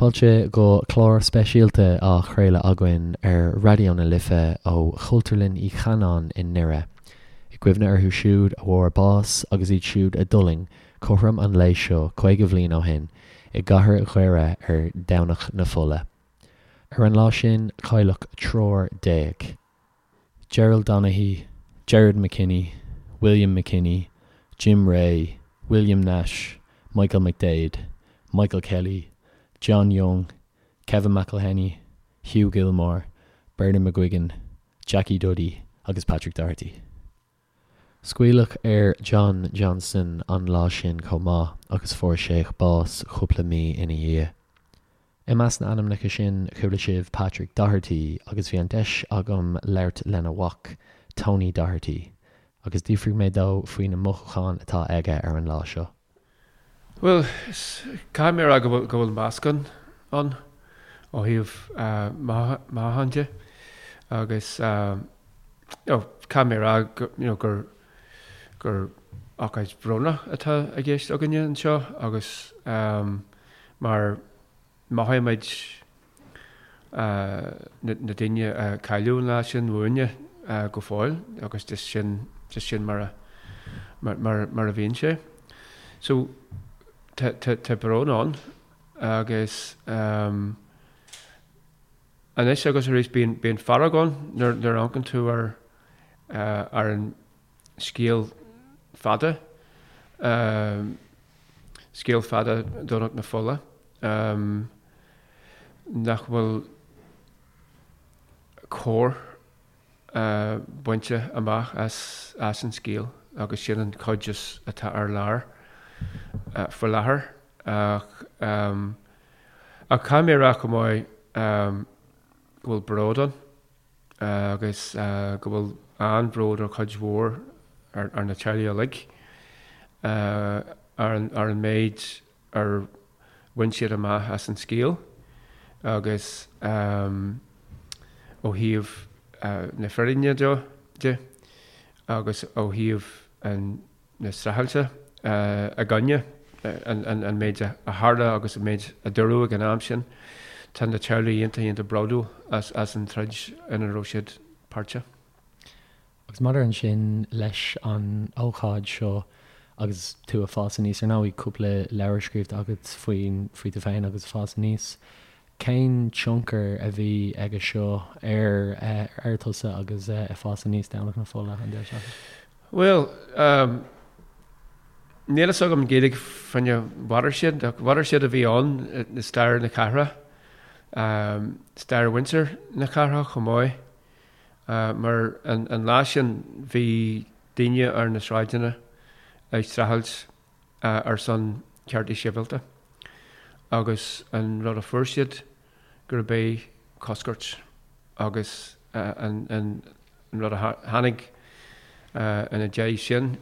Fáilte go clár speisialta á chraoladh againn ar Raidió na Life ó Chultúrlann Uí Chanáin i nDoire, i gcuimhne orthu siúd a bhfuair bás agus iad siúd a d'fhulaing cothrom an lae seo 50 bhliain ó shin i gcathair Dhoire ar Dhomhnach na Fola. Ar an lá sin cailleadh 13. Gerald Donaghy, Gerard McKinney, William McKinney, Jim Rea, William Nash, Michael McDaid, Michael Kelly, John Young, Kevin McElhinney, Hugh Gilmore, Bernard McGuigan, Jackie Duddy agus Patrick Doherty. Scaoileadh ar John Johnston an lá sin chomh maith agus fuair sé bás cúpla mí ina dhiaidh. I measc na n-ainmneacha sin chuala sibh Patrick Doherty agus bhí an deis agam labhairt lena mhac, Tony Doherty, agus d'fhiafraigh mé dó faoi na mothúcháin atá aige ar an lá seo. Bhuel, caithfidh mé a rá go bhfuil, go bhfuil meascán ann ó thaobh mothúchán de agus you know, caithfidh mé a rá go, you know, gur, gur ócáid bhrónach atá i gceist againne anseo agus mar mothaímid na daoine a cailleadh an lá sin uainne go fóill agus just sin, just sin mar a, mar, mar a bhíonn sé. So tá, tá, tá brón ann agus anois agus arís bíonn, bíonn fearg ann nuair, nuair a amharcann tú ar, ar an scéal fada, scéal fada Dhomhnach na Fola, nach bhfuil cóir bainte amach as an scéal agus sin an chuid is atá ar lár faoi láthair. Ach caithfidh mé a rá chomh maith go bhfuil bród ann. agus go bhfuil an-bhród ar chuid mhór ar na teaghlaigh uilig ar an méid ar bhain siad amach as an scéal agus ó thaobh na fírinne de agus ó thaobh an na streachailte i gcoinne an méid a tharla agus an méid a dúradh ag an am sin. Tá na teaghlaigh iontach, iontach bródúil as an troid ina raibh siad páirteach. Agus maidir ansin leis an ócáid seo agus tú ag fás aníos, ar ndóigh cúpla leabhar scríofa agat faoin, faoi tú féin agus fás aníos, cén tionchar a bhí aige seo ar, ar tusa agus ag fás aníos Domhnach na Fola an deireadh seachtaine? Bhuel, níl fhios agam Gaeilge fá choinne watershed, ach watershed a bhí ann i stair na cathrach, stair mhuintir na cathrach chomh maith, mar an lá sin bhí daoine ar na sráideanna ag streachailt ar son ceartaí sibhialta agus an rud a fuair siad gurb é coscairt agus an rud a tháinig ina dhiaidh sin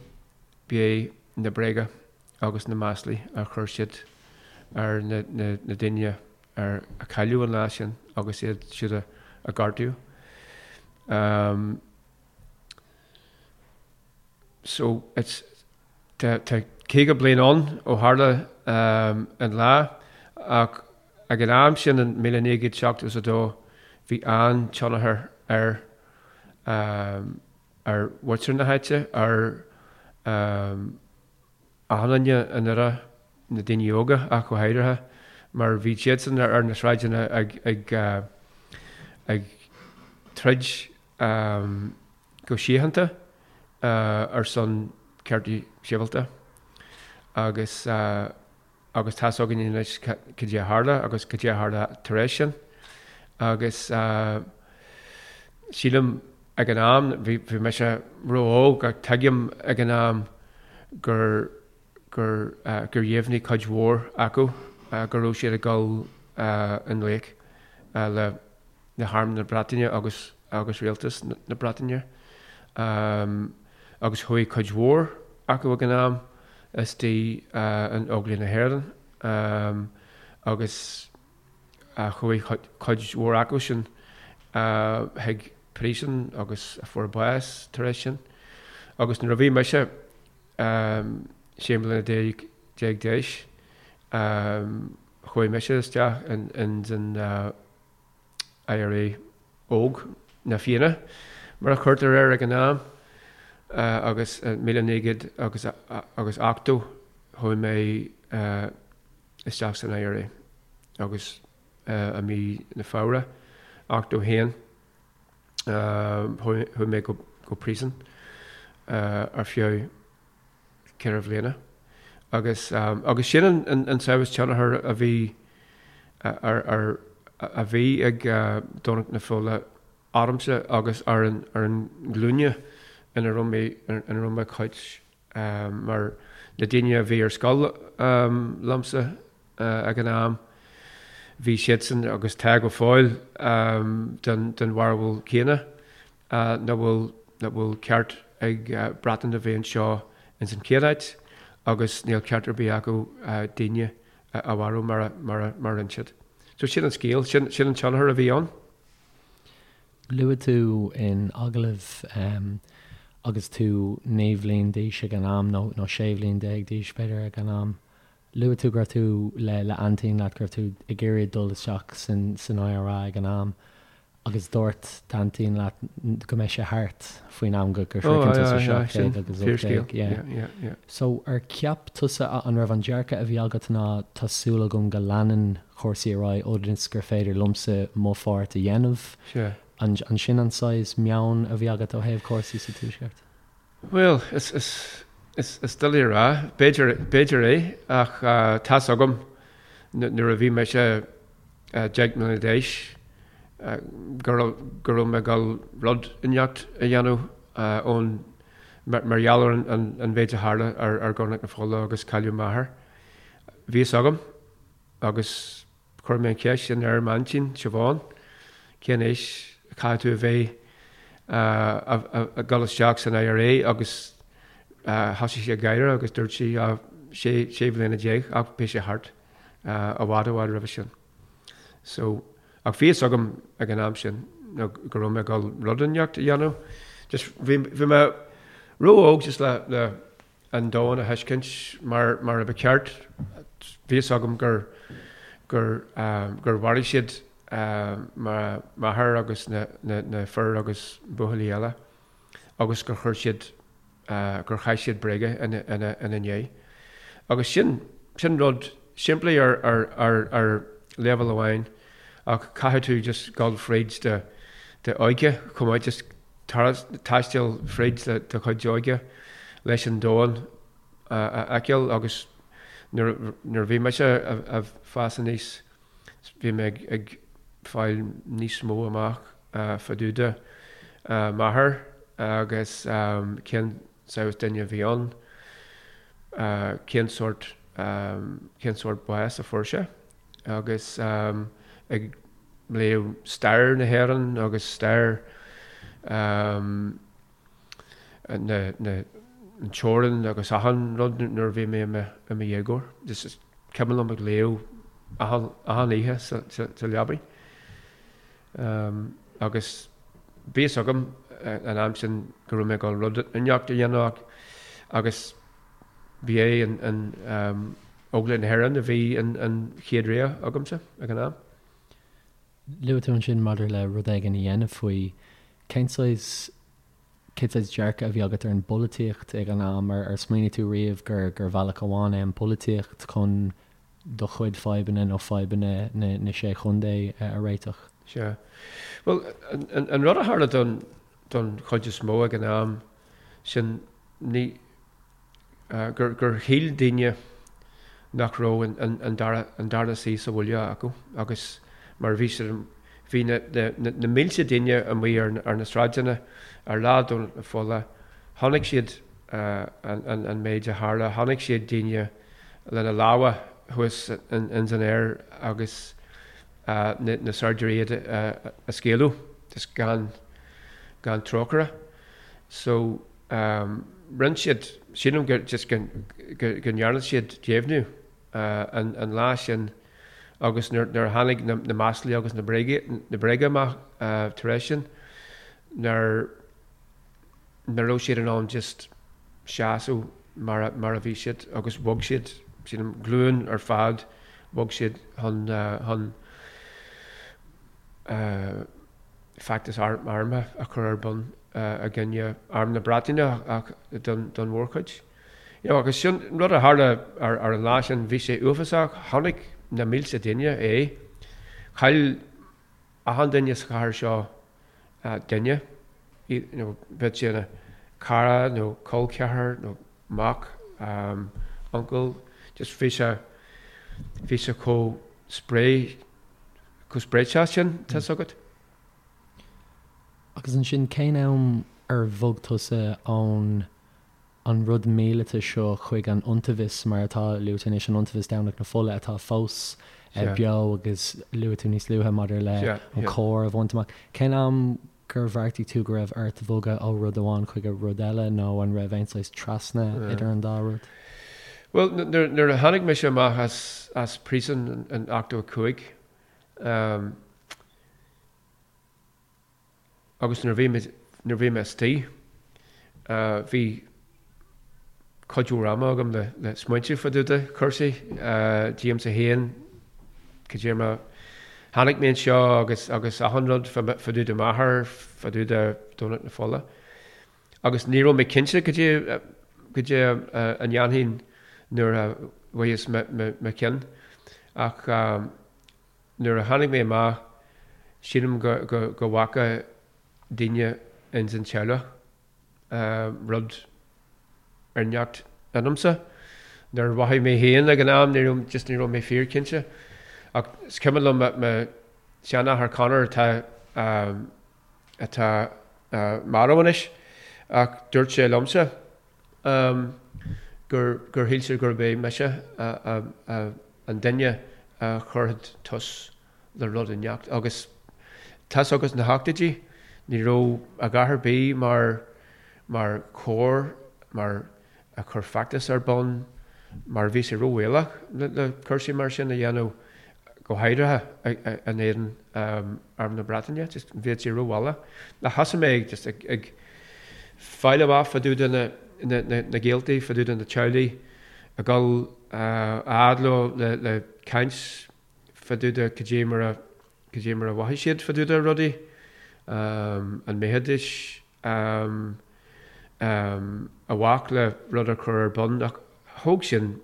b'é na bréaga agus na maslaí a chuir siad ar na daoine a cailleadh an lá sin agus iad siúd a gortaíodh. So it's tá 50 bliain ann ó tharla an lá ach Ag an am sin in 1972 bhí an-tionchar ar ar mhuintir na háite, ar achan duine i nDoire, na daoine óga ach go háirithe, mar bhí siadsan ar na sráideanna ag ag ag troid go síochánta ar son ceartaí sibhialta agus agus tá's againn anois cad é a tharla agus cad é a tharla tar éis sin. Agus sílim ag an am, bhí bhí mise ró-óg ach tuigim ag an am gur gur gur dheimhnigh cuid mhór acu go raibh siad ag dul i ngleic le le hArm na Breataine agus agus Rialtas na Breataine. Agus chuaigh cuid mhór acu ag an am istigh in Óglaigh na hÉireann agus chuaigh cuid mhór acu sin chuig príosún agus a fuair bás tar éis sin. Agus nuair a bhí mise 16 mbliana d'aois. Chuaigh mise isteach ins an IRA óg, na Fianna mar a chuirtear air ag an am, agus i 1980 agus 80 chuaigh mé isteach san IRA agus i mí na Feabhra 81 chuaigh mé go príosún ar feadh 4 bhliana agus agus sin an an saghas tionchar a bhí ar ar a bhí ag Domhnach na Fola ormsa agus ar an ar an nglúine ina raibh mé ina raibh mé cuid mar na daoine a bhí ar scoil liomsa ag an am bhí siadsan agus tá go fóill den den bharúil céanna. nach bhfuil nach bhfuil ceart ag Breatain a bheith anseo ins an chéad áit agus níl ceart ar bith acu daoine a mharú mar a mar a mar a rinne siad. So sin an scéal, sin sin an tionchar a bhí ann. Luaigh tú in agallamh agus tú 9 bhliain d'aois ag an am, nó nó 16 bhliain d'aois b'fhéidir ag an am, luaigh tú go raibh tú le le aintín leat, go raibh tú ag iarraidh dul isteach san san IRA ag an am. Agus dúirt d'aintín leat go mbeidh sé thart faoin am go sroicheann tusa 17 agus 18, yeah. So ar cheap tusa, an raibh an dearcadh a bhí agat ná tá súil agam go leanann cúrsaí ar aghaidh ionas gur féidir liomsa mo pháirt a dhéanamh? An sin an saghas meon a bhí agat ó thaobh cúrsaí sa Tuaisceart? Bhuel, is, is, is, is doiligh a rá. B'fhéidir, b'fhéidir é, ach tá's agam nuair a bhí mise 10 mbliana d'aois go raibh, go raibh mé ag dul rud inteacht a dhéanamh ón, mar, mar gheall ar an, an, an mhéid a tharla ar, ar Dhomhnach na Fola agus cailleadh m'athair. Bhí fhios agam agus Chuir mé an cheist sin ar m'aintín, Siobhán, cén aois a chaithfidh tú a bheith ag dul isteach san IRA agus thosaigh sí ag gáire agus dúirt sí 16 bhliana ach beidh sé thart i bhfad i bhfad roimhe sin. So, ach bhí fhios agam ag an am sin go raibh mé ag dul rud inteacht a dhéanamh. Just bhí mé ró-óg just le le an domhan a thuiscint mar mar a ba cheart. Bhí fhios agam gur gur gur mharaigh siad m'athair agus na na fir agus buachaillí eile agus gur chuir siad gur chaith siad bréaga ina ina ina ndiaidh. Agus sin sin rud simplí ar ar ar ar leibhéal amháin ach caithfidh tú just dul fríd do do óige chomh maith just taisteal fríd do chuid óige leis an domhan a fheiceáil agus nuair a bhí mise ag fás aníos bhí mé ag fáil níos mó amach fá dtaobh de m'athair agus cén saghas duine a bhí ann, cén sórt cén sórt bás a fuair sé agus ag léamh stair na hÉireann agus stair na na an teorann agus achan rud nuair a bhí mé i mo i mo dhéagóir. Just is cuimhin liom ag léamh achan achan oíche sa sa sa leabaidh. Agus bhí fhios agam an am sin go raibh mé ag dul rud inteacht a dhéanamh ach agus ba é an an Óglaigh na hÉireann a bhí an an chéad rogha agamsa ag an am. Luaigh tú ansin maidir le rud éigin a dhéanamh faoi. Cén saghas, cén saghas dearcadh a bhí agat ar an bpolaitíocht ag an am? Ar smaoinigh tú riamh gur, gur bhealach amháin é an pholaitíocht chun do chuid fadhbanna nó fadhbanna na, na Sé Chontae a réiteach? Sea. Bhuel, an, an rud a tharla don, don chuid is mó ag an am sin, ní, gur gur shíl daoine nach raibh an dara an dara suí sa bhaile acu agus mar bhí siad bhí na na na mílte daoine amuigh ar ar na sráideanna ar lá Domhnach na Fola chonaic siad an an an méid a tharla chonaic siad daoine lena lámha thuas ins an aer agus na na saighdiúirí iad a scaoileadh just gan gan trócaire so Rinne siad, sílim go just go go ndearna siad deimhniú an lá sin agus nuair nuair a tháinig na na maslaí agus na bréaga na bréaga amach tar éis sin nuair nach raibh siad in ann just seasamh mar a mar a bhí siad agus bhog siad sílim glúin ar fad Bhog siad chun chun feachtas armtha a chur ar bun i gcoinne Arm na Breataine ach don mhórchuid. You know, agus sin rud a tharla ar an lá sin, bhí sé uafásach, chonaic na mílte duine é. Chaill achan duine sa chathair seo duine, you know, bheadh sé ina cara nó col ceathar nó mac, uncail, just bhí sé, bhí sé chomh spré, chomh spréiteach sin, tá's agat. Agus ansin cén am ar bhog tusa ón an rud míleata seo chuig an iontaobhas, mar atá luaite anois, an iontaobhas Domhnach na Fola atá fós beo agus luaigh tú níos luaithe maidir le an cór a bhaint amach. Cén am gur bheartaigh tú go raibh ort bhogadh ó rud amháin chuig rud eile nó an raibh aon saghas trasna idir an dá rud? Bhuel, nuair a tháinig mise amach as príosún in 85, Agus nuair a bhí mé, nuair a bhí mé istigh, bhí cuid mhór ama agam le, le smaointiú fá dtaobh de chúrsaí, díomsa féin, cad é mar tháinig mé anseo agus, agus achan rud fá, fá dtaobh de m'athair, fá dtaobh de Dhomhnach na Fola. Agus ní raibh mé cinnte cad é, cad é a ndéanfainn nuair a bhfuigheas mo, mo, mo chionn. Ach Nuair a tháinig mé amach, sílim go bhfaca daoine ins an teaghlach rud inteacht ionamsa. Nuair a mhothaigh mé féin ag an am, ní raibh, just ní raibh mé fíorchinnte. Ach is cuimhin liom mo sheanathair Conor atá, atá marbh anois, ach dúirt sé liomsa gur, gur shíl sé gurb é mise an duine a chuirfeadh tús le rud inteacht. Agus tá's agat sna hochtóidí, ní raibh a dhath ar bith mar, mar chór, mar a chur feachtas ar bun, mar bhí sé róbhaolach le cúrsaí mar sin a dhéanamh, go háirithe in éadan Arm na Breataine, just bhí sé róbhaolach. Ach thosaigh mé ag just ag fáil amach fá dtaobh de na gaoltaí, fá dtaobh de na teaghlaigh, ag dul a fhad leo le caint fá dtaobh de cad é mar a, cad é mar a mhothaigh siad fá dtaobh de rudaí, an mbeidís i bhfách le rud a chur ar bun ach thóg sin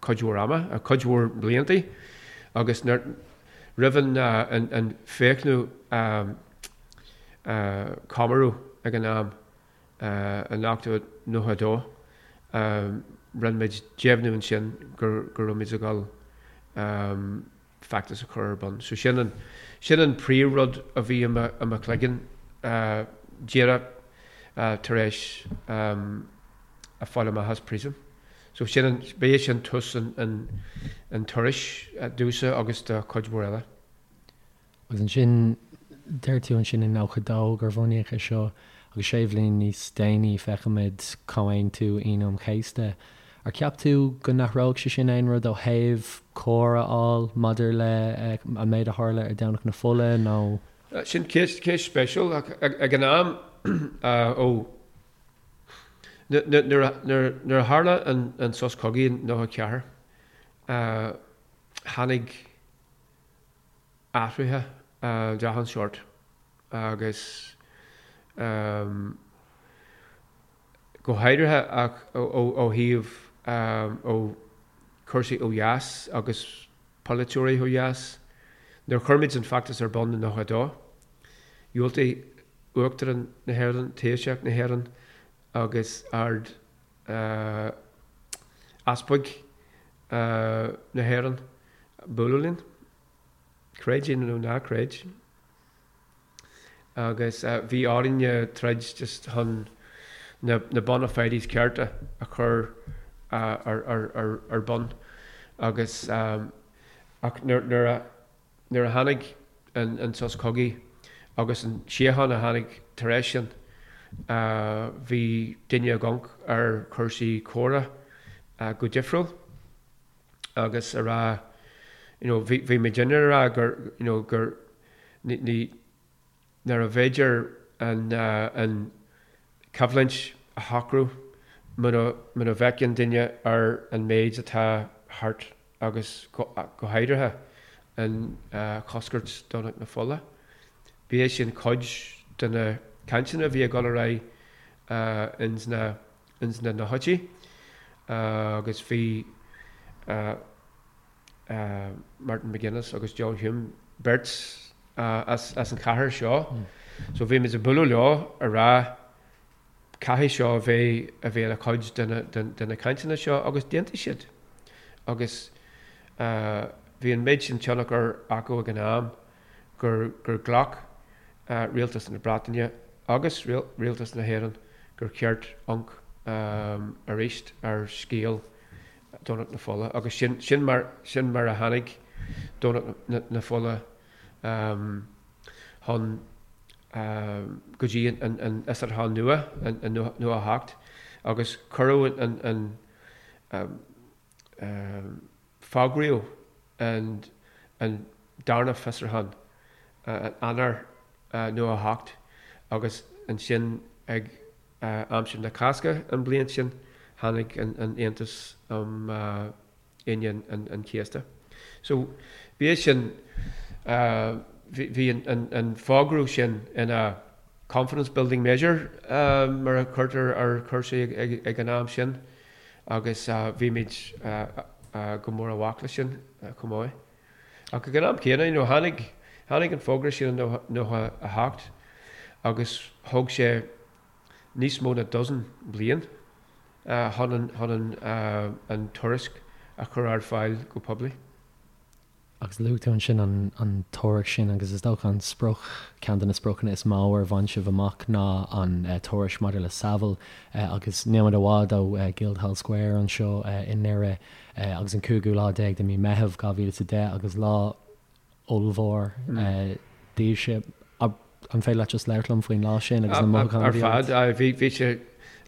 cuid mhór ama, cuid mhór bliantaí agus nuair, roimh an 20ú comóradh ag an am, in 1992, rinne muid deimhniú ansin go raibh muid ag dul feachtas a chur ar bun. So sin an, sin an príomhrud a bhí i mo, i mo chloigeann díreach tar éis a fáil amach as príosún. So sin an, b'é sin tús an, an, an turais domhsa agus do chuid mhór eile. Agus ansin, deir tú ansin in 92 gur bunaíodh é seo, agus sé bhliain níos déanaí feicimid Comhaontú Aoine an Chéasta. Ar cheap tú go n-athródh sé sin aon rud ó thaobh cóir a fháil maidir le an méid a tharla ar Domhnach na Fola nó? Sin ceist spéisiúil ach ag an am ó nuair a tharla an sos cogaidh in 94 tháinig athruithe de achan sórt agus go háirithe ach ó thaobh ó chúrsaí ó dheas agus polaiteoirí ó dheas. Nuair a chuir muid an feachtas ar bun i 92, dhiúltaigh Uachtarán na hÉireann, Taoiseach na hÉireann agus Ard Easpag na hÉireann bualadh linn, creid é nó ná creid. Agus bhí orainne troid just chun na bona fides cearta a chur ar bun agus ach nuair a Nuair a tháinig an sos cogaidh agus an síocháin a tháinig tar éis sin, bhí daoine ag amharc ar chúrsaí córa go difriúil agus a rá, you know, bhí bhí muidinne a rá gur, you know, gur ní, ní, nárbh fhéidir an an choimhlint a shocrú muna muna bhfeiceann duine ar an méid atá thart. agus go háirithe an choscairt Domhnach na Fola. Bhí é sin cuid de na cainteanna a bhí ag dul ar aghaidh ins na ins na nóchaidí agus bhí Martin McGuinness agus John Hume beirt as an chathair seo so bhí muid ag bualadh leo a rá caithfidh seo a bheith a bheith ina chuid de na cainteanna seo agus d'aontaigh siad agus bhí an méid sin tionchar acu ag an am gur gur ghlac Rialtas na Breataine agus Rialtas na hÉireann gur cheart amharc arís ar scéal Domhnach na Fola agus sin sin mar sin mar a tháinig Domhnach na Fola chun go dtí an fhiosrúchán nua i 98 agus cuireadh an fógraíodh an darna fiosrúchán in Eanáir 98 agus ansin ag aimsir na Cásca an bhliain sin tháinig an Aontas um Aoine an Chéasta. So bhí é sin, bhí an fógra sin ina confidence building measure mar a chuirtear ar chúrsaí ag an am sin agus bhí muid go mór i bhfách leis sin chomh maith. Ach ag an am céanna, you know, tháinig, tháinig an fógra sin i 98 agus thóg sé níos mó ná dozen bliain chun an, an tuairisc a chur ar fáil go poiblí. Agus luaigh tú ansin an tuairisc sin agus is dócha an sprioc, ceann de na spriocanna is mó ar bhain sibh amach ná an tuairisc maidir le Saville agus níl muid i bhfad ó Guildhall Square anseo i nDoire agus an cúigiú lá déag de mí Meitheamh 2010 agus lá ollmhór daoibhse. An féidir leat just labhairt liom faoin lá sin agus na mothúcháin a bhí agat? Ar fad, bhí sé,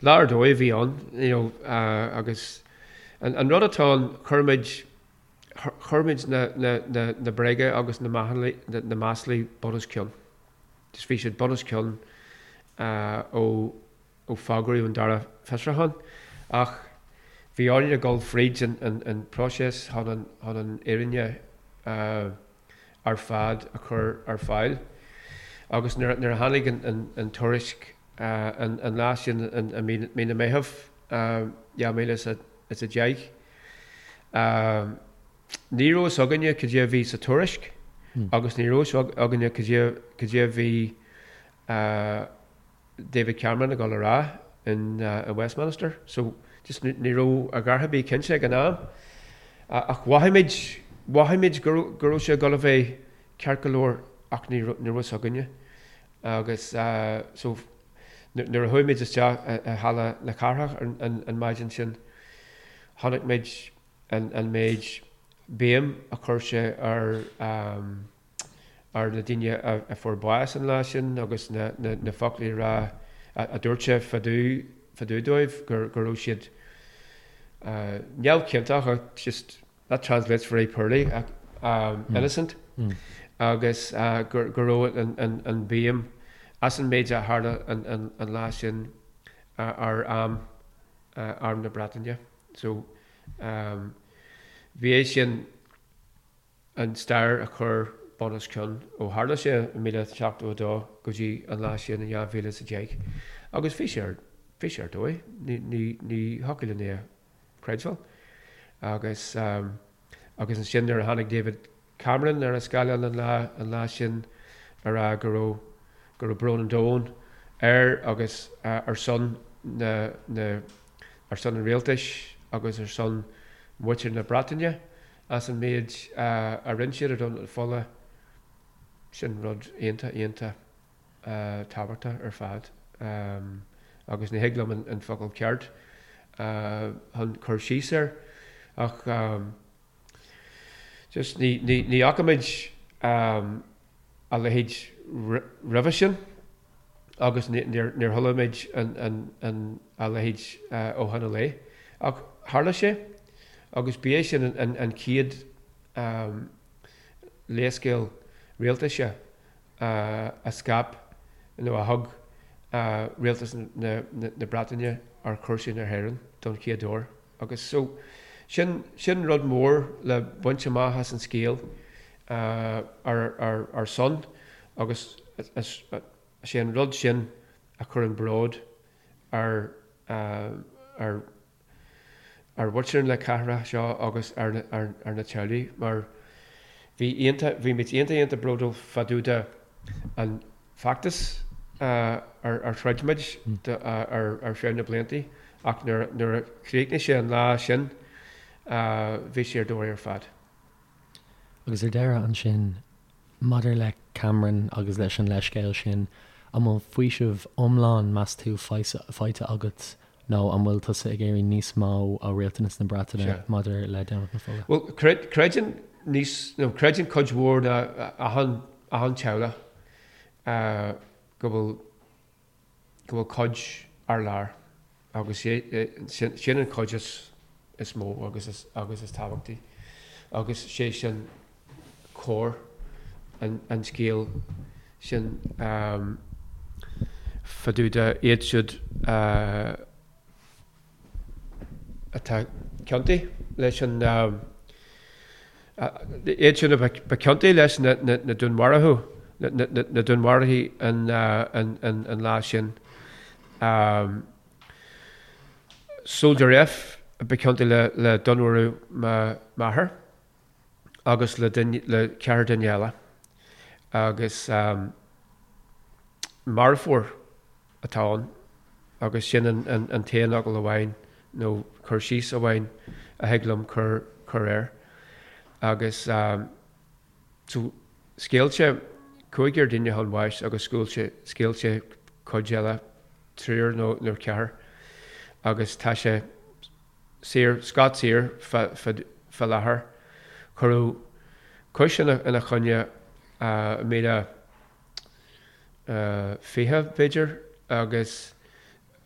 lá ar dóigh a bhí ann, you know, agus an rud atá ann, chuir muid, chuir muid na, na, na, na bréaga agus na maslaí, na maslaí bun os cionn. Just bhí siad bun os cionn ó, ó fógraíodh an dara fiosrúchán ach bhí orainn a dhul fríd an, an, an próiseas chun an, chun an fhírinne ar fad a chur ar fáil. Agus nuair, nuair a tháinig an, an, an tuairisc an, an lá sin i mí, mí na Meitheamh 2010, ní raibh fhios againne cad é a bhí sa tuairisc agus ní raibh fhios againne cad é, cad é a bhí David Cameron ag dul a rá in Westminster. So just ní raibh a dhath ar bith cinnte ag an am. Ach mhothaigh muid, mhothaigh muid go raibh, go raibh sé ag dul a bheith ceart go leor ach ní raibh, ní raibh fhios againne. Agus so nuair a chuaigh muid isteach i Halla na Cathrach an maidin sin, chonaic muid an méid béim a chuir sé ar ar na daoine a fuair bás an lá sin agus na foclaí a rá a dúirt sé fá dtaobh dóibh go raibh siad neamhchiontach ach just that translates very poorly innocent agus go raibh an bhéim as an méid a tharla an lá sin ar arm Arm na Breataine. So bhí é sin an stair a chur bun os cionn ó tharla sé i 1972 go dtí an lá sin in 2010 agus bhí sé ar, bhí sé ar dóigh, ní, ní, ní thiocfadh linn é a chreidbheáil. Agus, agus ansin nuair a tháinig David Cameron ar an scáileán an lá, an lá sin a rá go raibh, go raibh brón an domhain air agus ar son na, na, ar son an rialtais agus ar son mhuintir na Breataine as an méid a rinne siad ar Dhomhnach na Fola, sin rud iontach, iontach tábhachtach ar fad agus ní thig liom an focal ceart chun cur síos air ach just ní fhaca muid a leithéid roimhe sin agus níor chuala muid a leithéid ó shin i leith. Ach tharla sé agus ba é sin an chéad leithscéal rialtais a scaip nó a thug rialtas na Breataine ar chúrsaí na hÉireann don chéad uair. Agus so, Sin, sin rud mór le baint amach as an scéal ar, ar, ar son agus is é an rud sin a chuireann bród ar, ar, ar mhuintir na cathrach seo agus ar na teaghlaigh mar bhí iontach, bhí muid iontach iontach bródúil fá dtaobh de an feachtas ar throid muid ar feadh na blianta ach nuair a chríochnaigh sé an lá sin bhí sé ar dóigh ar fad. Agus ar deireadh ansin, maidir le Cameron agus leis an leithscéal sin, an bhfuil faoiseamh iomlán, meas tú, faighte agat nó an bhfuil tusa ag iarraidh níos mó ó rialtas na Breataine maidir le Domhnach na Fola? Bhuel, creideann níos, nó creideann cuid mhór de achan, achan teaghlach go bhfuil, go bhfuil cuid ar lár agus sin an chuid is mó agus is tábhachtaí agus sé sin cóir an scéil sin fá dtaobh de iad siúd atá ciontaithe leis an iad sin a ba ciontaí leis na dúnmharuithe na dúnmharuithe an lá sin. Soldier F a ba ciontaí le dúnmharú m'athar agus le le ceathrar duine eile agus marfóir atá ann agus sin an t-aon fhocal amháin nó cur síos amháin a thig liom cur cur air. Agus so scaoil sé cúigear duine chun bháis agus scaoil sé scaoil sé cuid eile, triúr nó nó ceathrar agus tá sé saor, scot saor fá láthair. Cuireadh cúis ina choinne i míle 20, b'fhéidir, agus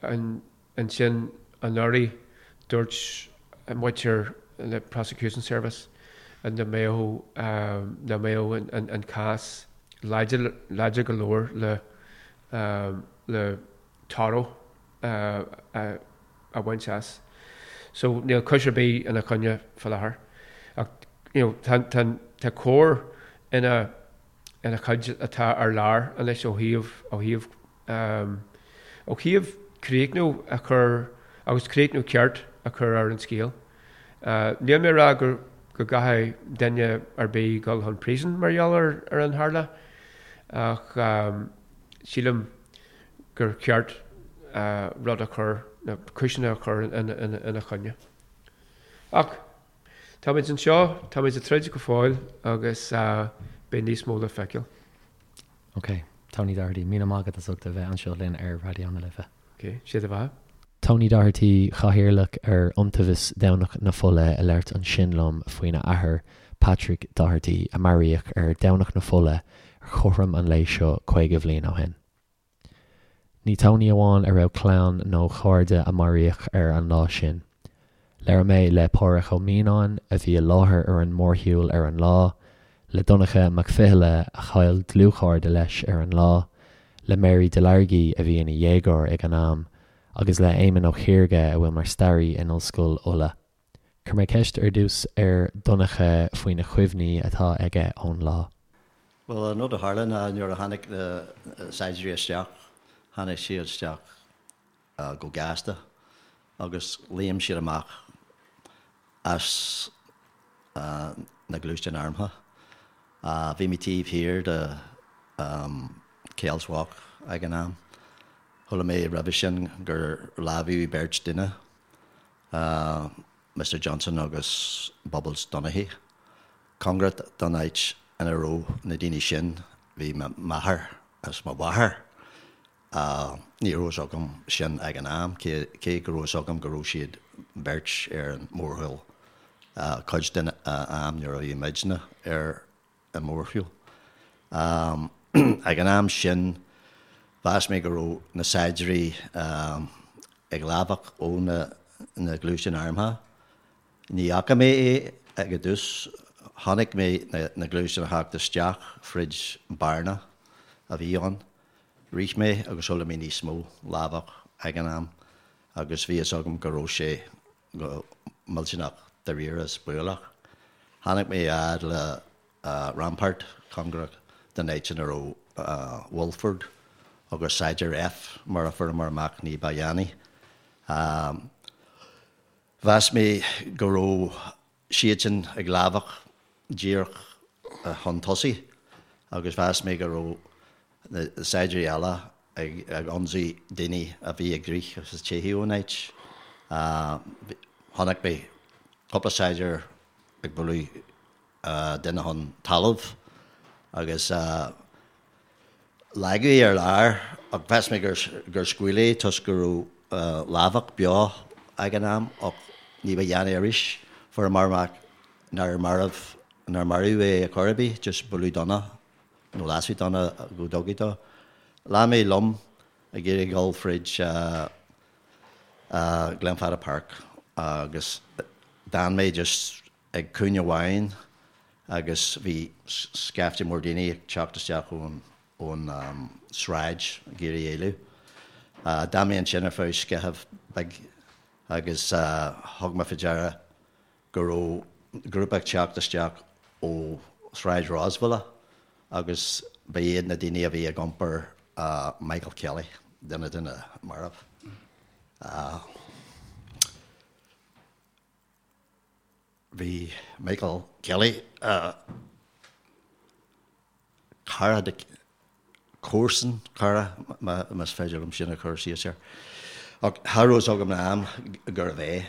ansin anuraidh dúirt muintir na Prosecution Service nach mbeadh nach mbeadh an cás láidir láidir go leor le le toradh a bhaint as. So níl cúis ar bith ina choinne fá láthair. Ach you know tá tá tá cóir ina ina chuid atá ar lár anois ó thaobh, ó thaobh, ó thaobh críochnú a chur agus críochnú ceart a chur ar an scéal. Níl mé ag rá go, go gcaithfidh duine ar bith dul chun príosúin mar gheall ar, ar an tharla ach sílim gur cheart rud a chur, na cúiseanna a chur ina, ina, ina choinne. Ach. Táimid anseo, táimid ag troid go fóill agus beidh níos mó le feiceáil. Ok, Tony Doherty, míle maith agat as ucht a bheith anseo linn ar Raidió na Life. Ok, sé do bheatha. Tony Doherty, Cathaoirleach ar Iontaobhas Dhomhnach na Fola ag labhairt ansin liom faoina athair, Patrick Doherty, a maraíodh ar Dhomhnach na Fola ar chothrom an lae seo 50 bhliain ó shin. Ní Tony amháin a raibh clann nó cairde a maraíodh ar an lá sin. Labhair mé le Pádhraic Ó Mianáin, a bhí i láthair ar an mórshiúl ar an lá, le Donncha Mac Fhionnghaile, a chaill dlúthchairde leis ar an lá, le Mary Delargy, a bhí ina dhéagóir ag an am, agus le Éamon Ó Ciarga, a bhfuil mar staraí in Ollscoil Uladh. Chuir mé ceist ar dtús ar Dhonncha faoi na cuimhní atá aige ón lá. Bhuel, an rud a tharla ná nuair a tháinig na saighdiúirí isteach, tháinig siad isteach go gasta agus léim siad amach as na gluaisteáin armtha. Bhí mé taobh thiar de Kells Walk ag an am. Chuala mé roimhe sin gur lámhaíodh beirt duine. Mister Johnson agus Bubbles Donaghy. Cóngarach don áit ina raibh na daoine sin bhí m'athair is mo mháthair. Ní raibh fhios agam sin ag an am, cé go raibh fhios agam go raibh siad beirt ar an mórshiúl cuid den am nuair a bhí muidne ar an mórshiúl. Ag an am sin, mheas mé go raibh na saighdiúirí ag lámhach ó na gluaisteáin armtha. Ní fhaca mé é ag an dtús. Chonaic mé na gluaisteáin a theacht isteach fríd bearna a bhí ann. Rith mé agus chuala mé níos mó lámhach ag an am agus bhí fhios agam go raibh sé go millteanach. dáiríre is baolach. Tháinig mé a fhad le Rampart, cóngarach don áit ina raibh Wolford agus Saighdiúir F mar a fuaireamar amach ní ba dhéanaí. Mheas mé go raibh siadsan ag lámhach díreach chun tosaigh agus mheas mé go raibh na saighdiúirí eile ag ionsaí daoine a bhí ag rith agus ag teitheadh ón áit. Chonaic mé cúpla saighdiúir ag bualadh duine chun talaimh agus leagadh é ar lár ach mheas mé gur scaoileadh é toisc go raibh lámhach beo ag an am ach ní ba dhéanaí arís fuaireamar amach nár marbh nár maraíodh é ar chor ar bith, just bualadh dona nó lasadh dona go dtugtha dó. Lean mé liom ag iarraidh dul fríd Glenfada Park agus d'fhan mé just ag cúinne amháin agus bhí scaifte mór daoine ag teacht isteach ón ón sráid ag iarraidh éalú. D'fhan mé ansin ar feadh scaitheamh beag agus thug mé faoi deara go raibh grúpa ag teacht isteach ó Shráid Rosevilla agus ba iad na daoine a bhí ag iompar Michael Kelly, duine de na mairbh. Bhí Michael Kelly, cara de, comharsan, cara, más féidir liom sin a chur síos air. Ach cha raibh fhios agam ag an am gurbh é.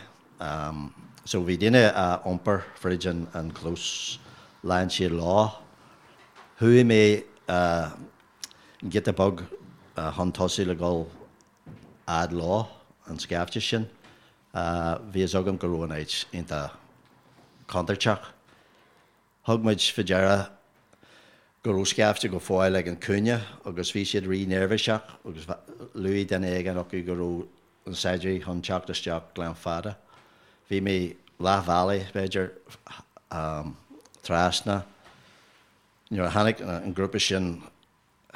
So bhí daoine á iompar fríd an chlós, lean siad leo. Chuaigh mé giota beag chun tosaigh le dhul fhad leo, an scaifte sin. Bhí fhios agam go raibh an áit iontach contúirteach. Thug muid faoi deara go raibh scaifte go fóill ag an cúinne agus bhí siad rí-neirbhíseach agus luaigh duine éigin acu go raibh na saighdiúirí chun teacht isteach Gleann Fada. Bhí mé leath bhealaigh, b'fhéidir, trasna nuair a tháinig an grúpa sin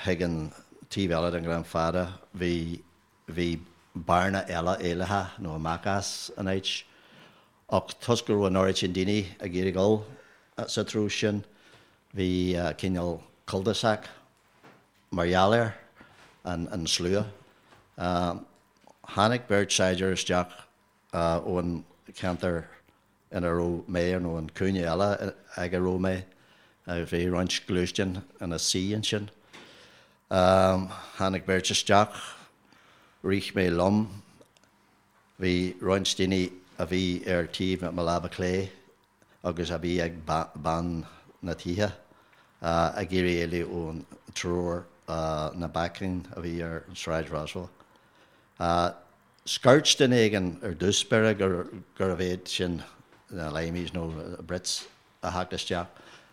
chuig an taobh eile den Ghleann Fada, bhí bhí bearna eile éalaithe nó amach as an áit. Ach toisc go raibh an oiread sin daoine ag iarraidh dul sa treo sin, bhí cineál cul-de-sac mar gheall air, an slua. Tháinig beirt saighdiúir isteach ón cheantar ina raibh mé nó an cúinne eile ag a raibh mé. Bhí roinnt gluaisteán ina suí ansin. Tháinig beirt isteach, rith mé liom. Bhí roinnt daoine a bhí ar taobh mo láimhe clé agus a bhí ag bun na tithe ag iarraidh éalú ón triúr na bacainn a bhí ar an Sráid Roswell. Scairt duine éigin ar dtús báire gurbh iad sin na Limeys nó na Brits a theacht isteach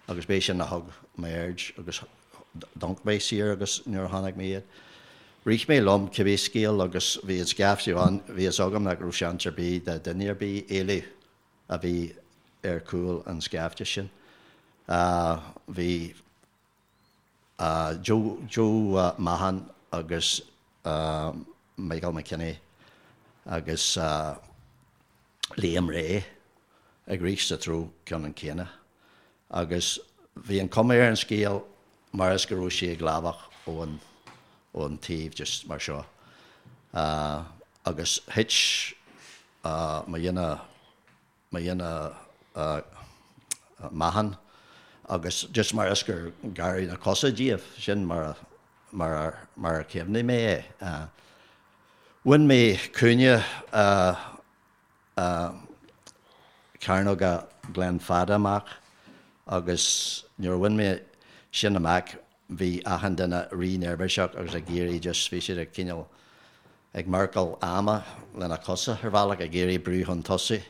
agus b'é sin a thug m'aird agus d'amharc mé siar agus nuair a chonaic mé iad. Rith mé liom cibé scéal agus bhí an scaifte ann, bhí fhios agam nach raibh seans ar bith de duine ar bith éalú a bhí ar chúl an scaifte sin. Bhí. Joe Joe Mahon agus Michael McKinney agus Liam Ray ag rith sa treo ceannann céanna agus bhí an cuma ar an scéal mar is go raibh sí ag lámhach ón ón taobh just mar seo agus thit mo dhuine mo dhuine Mahon agus just mar is gur gearradh na cosa díobh, sin mar a mar a mar a chuimhnigh mé é. Bhain mé cúinne Cearnóga Glen Fada amach agus nuair a bhain mé sin amach bhí achan duine rí-neirbhíseach agus ag iarraidh just bhí siad ag cineál ag marcáil ama lena cosa ar bhealach, ag iarraidh brú chun tosaigh.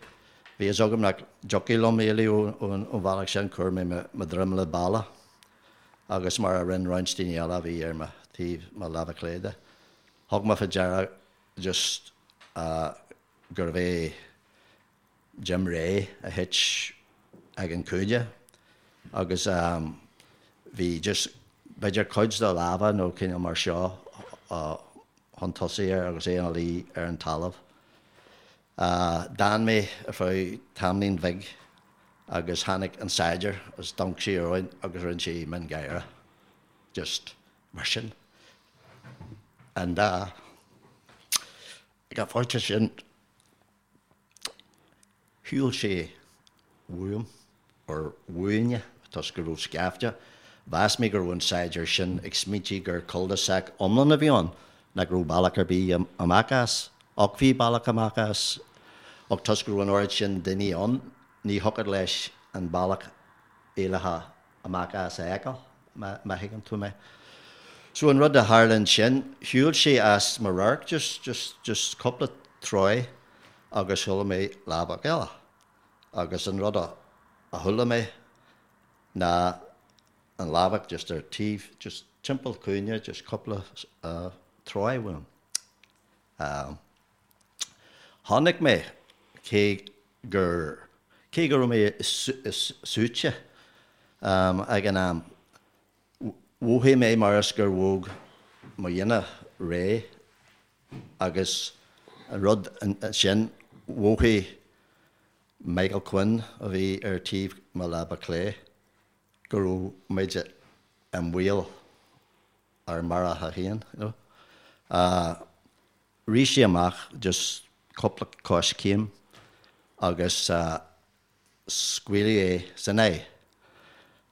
Bhí fhios agam nach dtiocfadh liom éalú ón bhealach sin, chuir mé mo dhroim le balla agus mar a rinne roinnt daoine eile a bhí ar mo taobh mo láimhe clé de. Thug mé faoi deara just gurbh é Jim Ray a thit ag an cúinne agus bhí just b'fhéidir cuid dá lámha nó cineál mar seo chun tosaigh air agus é ina luí ar an talamh. D'fhan mé ar feadh tamaillín bhig agus tháinig an saighdiúir is d'amharc sé orainn agus rinne sé mion gáire. Just mar sin. And ag an phointe sin Shiúil sé uaim, or uainne, toisc go raibh scaifte. Mheas mé go raibh an saighdiúir sin ag smaointiú gur cul-de-sac iomlán a bhí ann, nach raibh bealach ar bith amach as. Ach bhí bealach amach as, ach toisc go raibh an oiread sin daoine ann, ní thiocfadh leis an bealach éalaithe amach as a fheiceáil, má thuigeann tú mé. So an rud a tharla ansin, shiúil sé as mo radharc just, just, just cúpla troigh agus chuala mé lámhach eile. Agus an rud a chuala mé ná an lámhach just ar taobh, just timpeall cúinne, just cúpla troigh uaim. Chonaic mé, cé gur, cé go raibh mé suaite ag an am, mhothaigh mé mar is gur bhog mo dhuine réidh agus an rud sin, mhothaigh Michael Quinn a bhí ar taobh mo láimhe clé go raibh muid i mbaol ár maraithe féin, you know. Rith sé amach just cúpla coiscéim agus scaoileadh é san aghaidh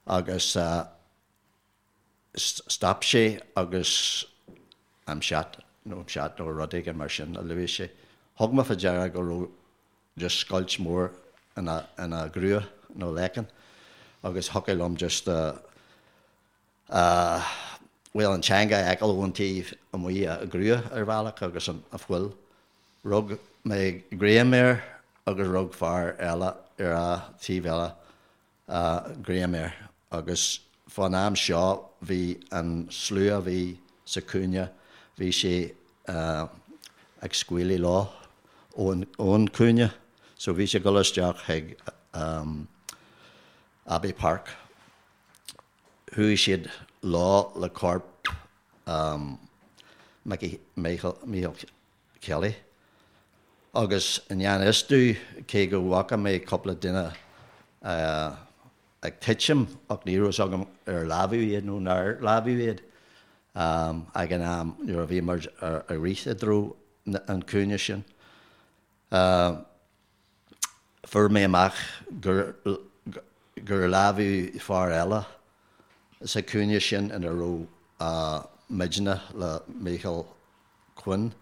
agus stop sé agus I'm shot nó I'm shot nó rud éigin mar sin a luaigh sé. Thug mé fá deara go raibh just scoilt mór ina ghrua nó leiceann agus thiocfadh liom just bhuel, an teanga a fheiceáil ón taobh amuigh a ghrua ar bhealach agus an fuil. Rug mé greim air agus rug fear eile ar a taobh eile greim air agus fán am seo bhí an slua a bhí sa chúinne, bhí sé ag scaoileadh leo ón chúinne so bhí sé ag dul isteach chuig Abbey Park. Chuaigh siad leo le corp Mickey, Michael Kelly agus i ngan fhios domh, cé go bhfaca mé cúpla duine ag titim ach ní raibh fhios agam ar lámhadh iad nó nár lámhadh iad ag an am nuair a bhí muid ag rith i dtreo an cúinne sin. Fuair mé amach gur lámhadh fear eile sa chúinne sin ina raibh muidne le Michael Quinn.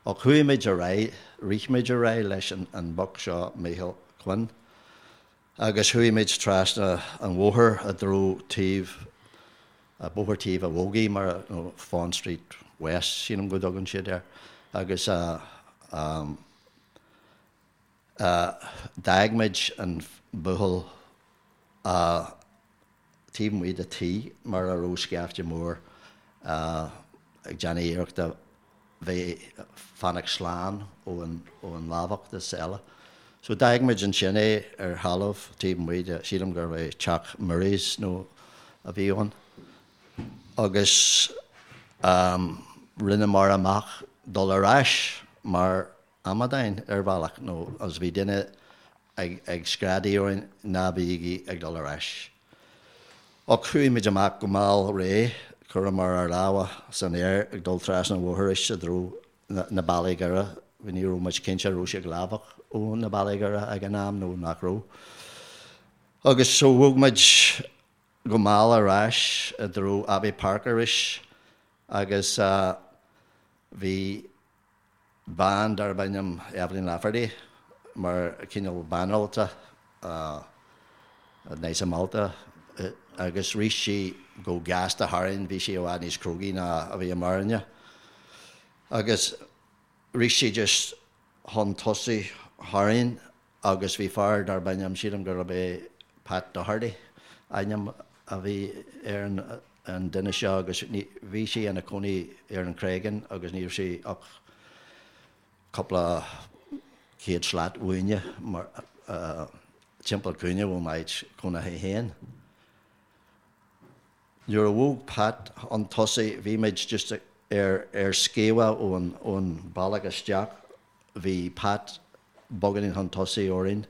Ach chuaigh muid ar aghaidh, rith muid ar aghaidh leis an boc seo Michael Quinn agus chuaigh muid trasna an bhóthair i dtreo taobh, Bóthar Taobh an Bhogaigh mar, nó Fawn Street West sílim go dtugann siad air agus D'fhág muid an buachaill taobh amuigh de tigh mar a raibh scaifte mór ag déanamh iarrachta bheith fanacht slán ón lámhach is eile. So d'fhág muid ansin é ar thalamh taobh amuigh de, sílim gurbh é teach Murray's nó a bhí ann. Agus rinneamar amach dul ar ais mar amadáin ar bhealach nó agus bhí duine ag screadaigh orainn ná bígí ag dul ar ais. Ach chuaigh muid amach go mall réidh, chuireamar ár lámha san aer ag dul trasna an bhóthair arís i dtreo na Bealaí Géara, ní raibh muid cinnte an raibh sé ag lámhach ó na Bealaí Géara ag an am nó nach raibh. Agus so bhog muid go mall ar ais i dtreo Abbey Park arís agus bhí bean darb ainm Evelyn Lafferty mar chineál banaltra nice malta agus rith sí go gasta tharainn, bhí sí i bhfad níos crógaí ná a bhíomarne agus rith sí just chun tosaigh tharainn agus bhí fear darb ainm, sílim gurb é Pat Doherty ainm a bhí ar an duine seo agus bhí sé ina chónaí ar an Chreagán agus ní raibh sé ach cúpla céad slat uainne mar timpeall cúinne ó m'áit chónaithe féin. Nuair a bhog Pat chun tosaigh bhí muid just ar ar sciamha ón ón bealach isteach. Bhí Pat. beagáinín chun tosaigh orainn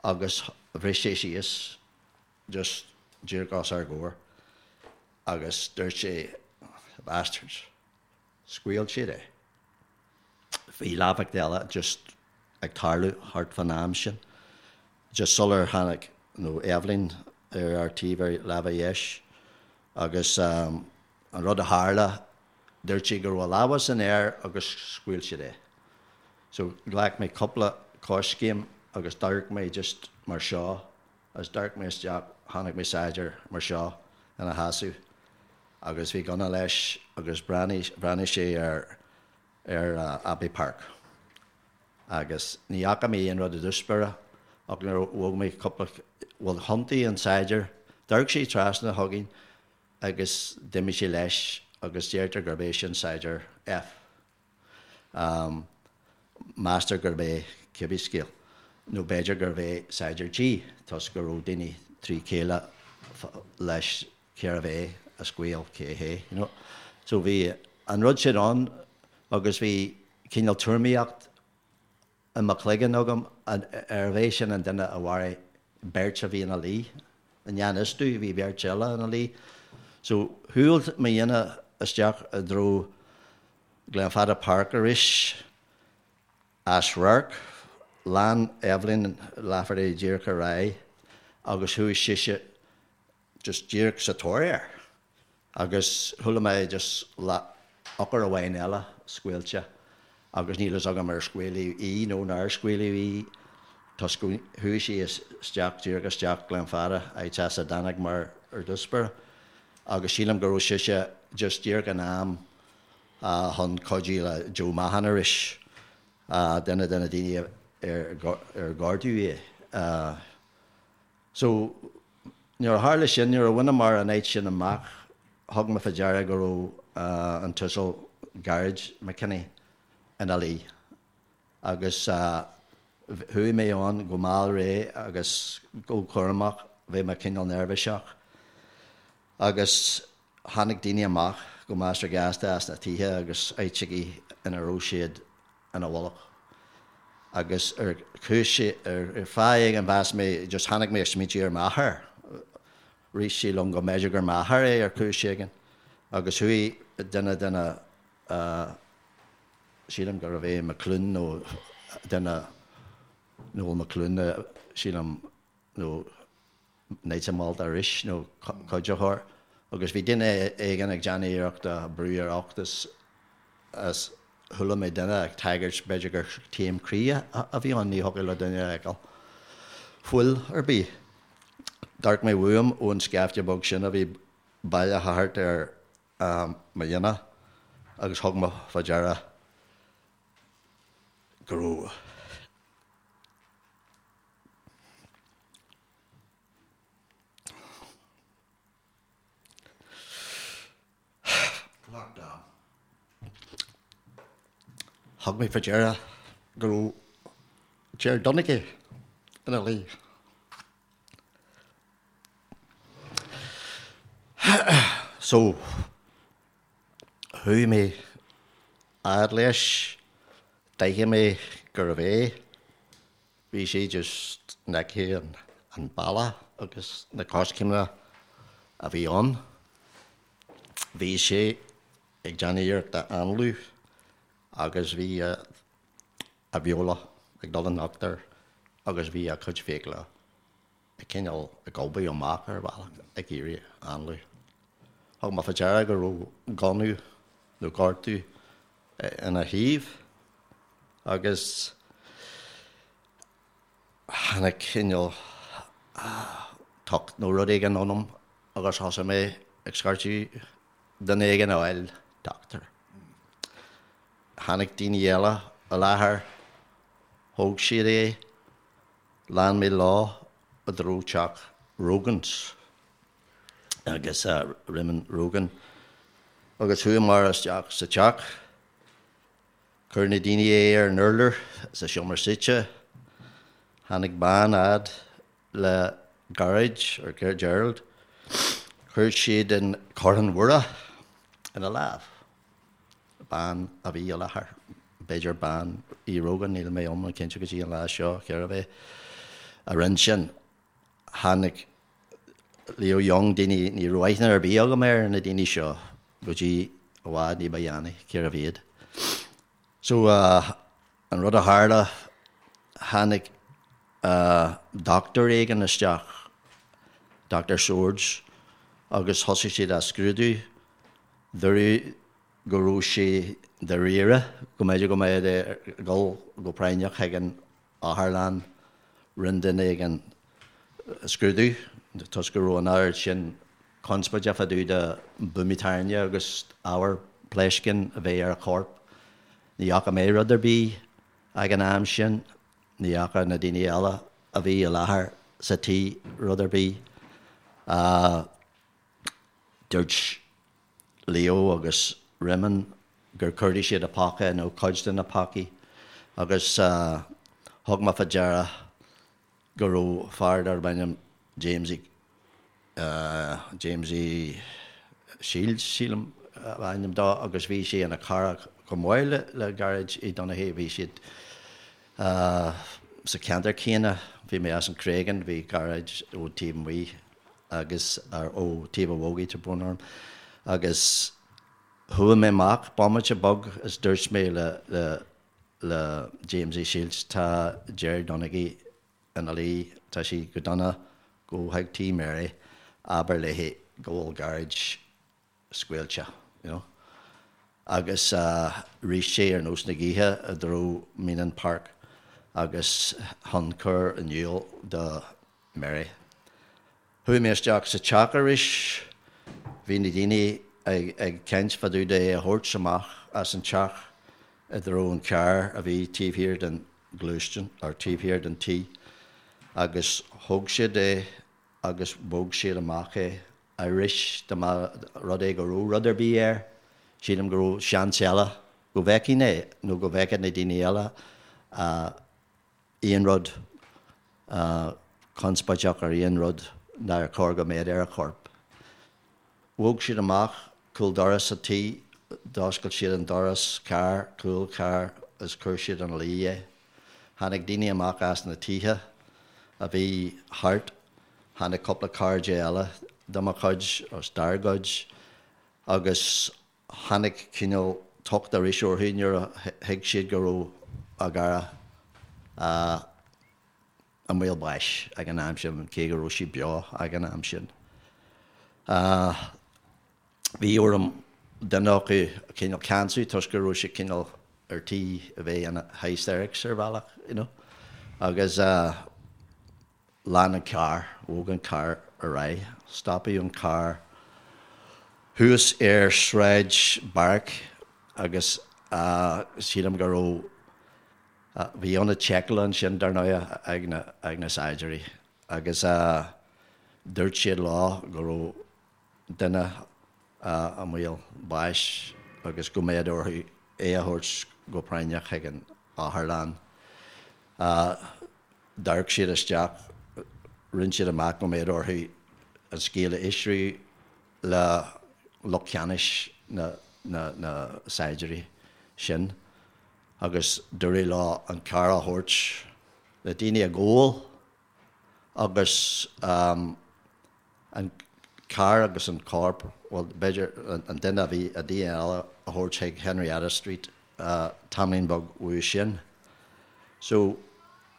agus bhris sé síos just díreach os ár gcomhair agus dúirt sé 'bastards'. Scaoil siad é. Bhí lámhach eile just ag tarlú thart fán am sin, just sular tháinig nó Eibhlín ar ár taobh ar lámh a dheis agus an rud a tharla, dúirt sé go raibh a lámha san aer agus scaoil siad é. So ghlac mé cúpla coiscéim agus d'amharc mé just mar seo agus d'amharc mé isteach, chonaic mé saighdiúir mar seo ina sheasamh agus bhí gunna leis agus bhreathnaigh, bhreathnaigh sé ar, ar Abbey Park agus ní fhaca mé aon rud i dtús báire ach nuair a bhog mé cúpla, bhuel thiontaigh an saighdiúir, d'amharc sé trasna chugainn agus d'imigh sé leis agus deirtear gurb é sin saighdiúir F. Meastar gurb é cibé scéal, nó b'fhéidir gurbh é Saighdiúir G, toisc go raibh daoine trí chéile leis cérbh é a scaoil cé hé, you know. So bhí an rud sin ann agus bhí cineál tuairimíocht i mo chloigeann agam arbh é sin an duine a mharaigh beirt a bhí ina luí i ngan fhios domh, bhí beirt eile ina luí. So shiúil mo dhuine isteach i dtreo Glenfada Park arís, as radharc, lean Eibhlín Lafferty díreach ar aghaidh agus chuaigh sise just díreach sa tóir air agus chuala mé just eochair amháin eile scaoilte agus níl fhios agam ar scaoileadh í nó nár scaoileadh í toisc go chuaigh sí isteach díreach isteach Glenfada áit as a dtáinig mar ar dtús báire agus sílim go raibh sise just díreach in am chun cuidiú le Joe Mahon arís, duine de na daoine ar gortaíodh é. So, nuair a tharla sin, nuair a bhaineamar an áit sin amach, thug mé fá deara go raibh an tUasal Gearóid McKinney ina luí. Agus chuaigh mé ann go mall réidh agus go cúramach, bhí mé cineál neirbhíseach. Agus tháinig daoine amach go measartha gasta as na tithe agus áiteachaí ina raibh siad ina bhfolach. Agus ar chúis, ar fáth éigin mheas mé, just tháinig mé ag smaointiú ar m'athair. Rith sé liom go mb'fhéidir gur m'athair é ar chúis éigin. Agus chuaigh duine de na, sílim gurbh é McCloone nó duine, Noel McCloone, sílim, nó Knights of Malta arís, nó cuiditheoir, agus bhí duine éigin ag déanamh iarrachta brú ar ucht is chuala mé duine ag tagairt b'fhéidir gur taom croí a bhí ann, ní thiocfadh le duine a fheiceáil fuil ar bith. D'amharc mé uaim ón scaifte beag sin a bhí bailithe thart ar mo dhuine agus thug mé fá deara go raibh. Lockdown. Thug mé faoi deara go raibh Ger Donaghy ina luí. So, chuaigh mé fhad leis, d'aithin mé gurbh é. Bhí sé just in aice an balla agus na coiscéimeanna a bhí ann. Bhí sé ag déanamh iarrachta análú agus bhí a bheola ag dul in uachtar agus bhí a chuid fiacla ag cineál ag gobadh amach ar bhealach ag iarraidh análú. Thug mé fá deara go raibh gunna nó gortú ina thaobh agus tháinig cineál tocht nó rud éigin ionam agus thosaigh mé ag scairteadh duine éigin a fháil, dochtúir. Tháinig daoine eile i láthair, thóg siad é, lean mé leo i dtreo teach Rogans agus Raymond Rogan agus chuamar isteach sa teach. Chuir na daoine é ar an urlár sa seomra suite. Tháinig bean fhad le Gearóid, or Gerald. Chuir siad an Choróin Mhuire ina lámh. Bean a bhí i láthair. b'fhéidir bean Uí Rogan, níl mé iomlán cinnte go dtí an lá seo cérbh é a rinne sin. Tháinig Leo Young, daoine, ní raibh aithne ar bith agam ar na daoine seo go dtí i bhfad ní ba dhéanaí, cérbh iad. So, an rud a tharla, tháinig dochtúir éigin isteach, Doctor Swords, agus thosaigh siad á scrúdú. Dúradh go raibh sé dáiríre, go mb'fhéidir go mbeadh ag dul go práinneach chuig an otharlann. Rinne duine éigin scrúdú toisc go raibh an oiread sin conspóide fá dtaobh de buamaí tairne agus ábhar pléascáin a bheith ar a chorp. Ní fhaca mé rud ar bith ag an am sin. Ní fhaca na daoine eile a bhí i láthair sa tí rud ar bith. Dúirt Leo agus Réamonn gur chuardaigh siad a phóca nó cuid de na pócaí agus thug mé fá deara go raibh fear darb ainm Jamesie, Jamesie Shields sílim ab ainm dó agus bhí sé ina chara chomh maith le Gearóid Uí Dhonnachaidh, bhí siad sa cheantar céanna, bhí mé as an Chreagán, bhí Gearóid ó taobh amuigh agus ó taobh an Bhogaigh, tá brón orm, agus chuaigh mé amach bomaite beag is dúirt mé le le le Jamesie Shields tá Gerry Donaghy ina luí, tá sé go dona, gabh chuig tí Mary, abair léi go bhfuil Gearóid scaoilte, you know. Agus rith sé ar nós na gaoithe i dtreo Meenan Park agus chun cur in iúl do Mary. Chuaigh mé isteach sa teach arís. Bhí na daoine ag caint fá dtaobh de é a thabhairt amach as an teach i dtreo an carr a bhí taobh thiar den ghluaisteán, or taobh thiar den tí, agus thóg siad é agus bhog siad amach é arís dá mba rud é go raibh rud ar bith air, sílim go raibh seans eile go bhfeicfinn é nó go bhfeicfeadh na daoine eile aon rud conspóideach ar aon rud nár chóir go mbeadh ar a chorp. Bhog siad amach cúl doras an tí, d'oscail siad an doras carr, cúl carr is chuir siad ina luí é. Tháinig daoine amach as na tithe a bhí thart, tháinig cúpla cairde eile de mo chuid, agus dár gcuid, agus tháinig cineál tocht arís orthu nuair a thuig siad go raibh a gcara i mbaol báis ag an am sin, cé go raibh sé beo ag an am sin. Bhí orm duine acu a chineál ceansú toisc go raibh sé cineál ar tí a bheith ina hysterics ar bhealach, you know. Agus lean an carr, bhog an carr ar aghaidh, stopadh an carr thuas ar Sráid Barrack agus sílim go raibh, bhí ionad seiceála ansin dar ndóigh ag na, ag na saighdiúirí agus dúirt siad leo go raibh duine i mbaol báis agus go mbeadh orthu é a thabhairt go práinneach chuig an otharlann. D'amharc siad isteach, rinne siad amach go mbeadh orthu an scéal a fhiosrú le lucht ceannais na saighdiúirí sin agus dúradh leo an carr a thabhairt le daoine a ghabháil agus an carr agus an corp, bhuel, b'fhéidir an duine a bhí, an duine eile a thabhairt chuig Henrietta Street tamaillín beag uaidh sin. So,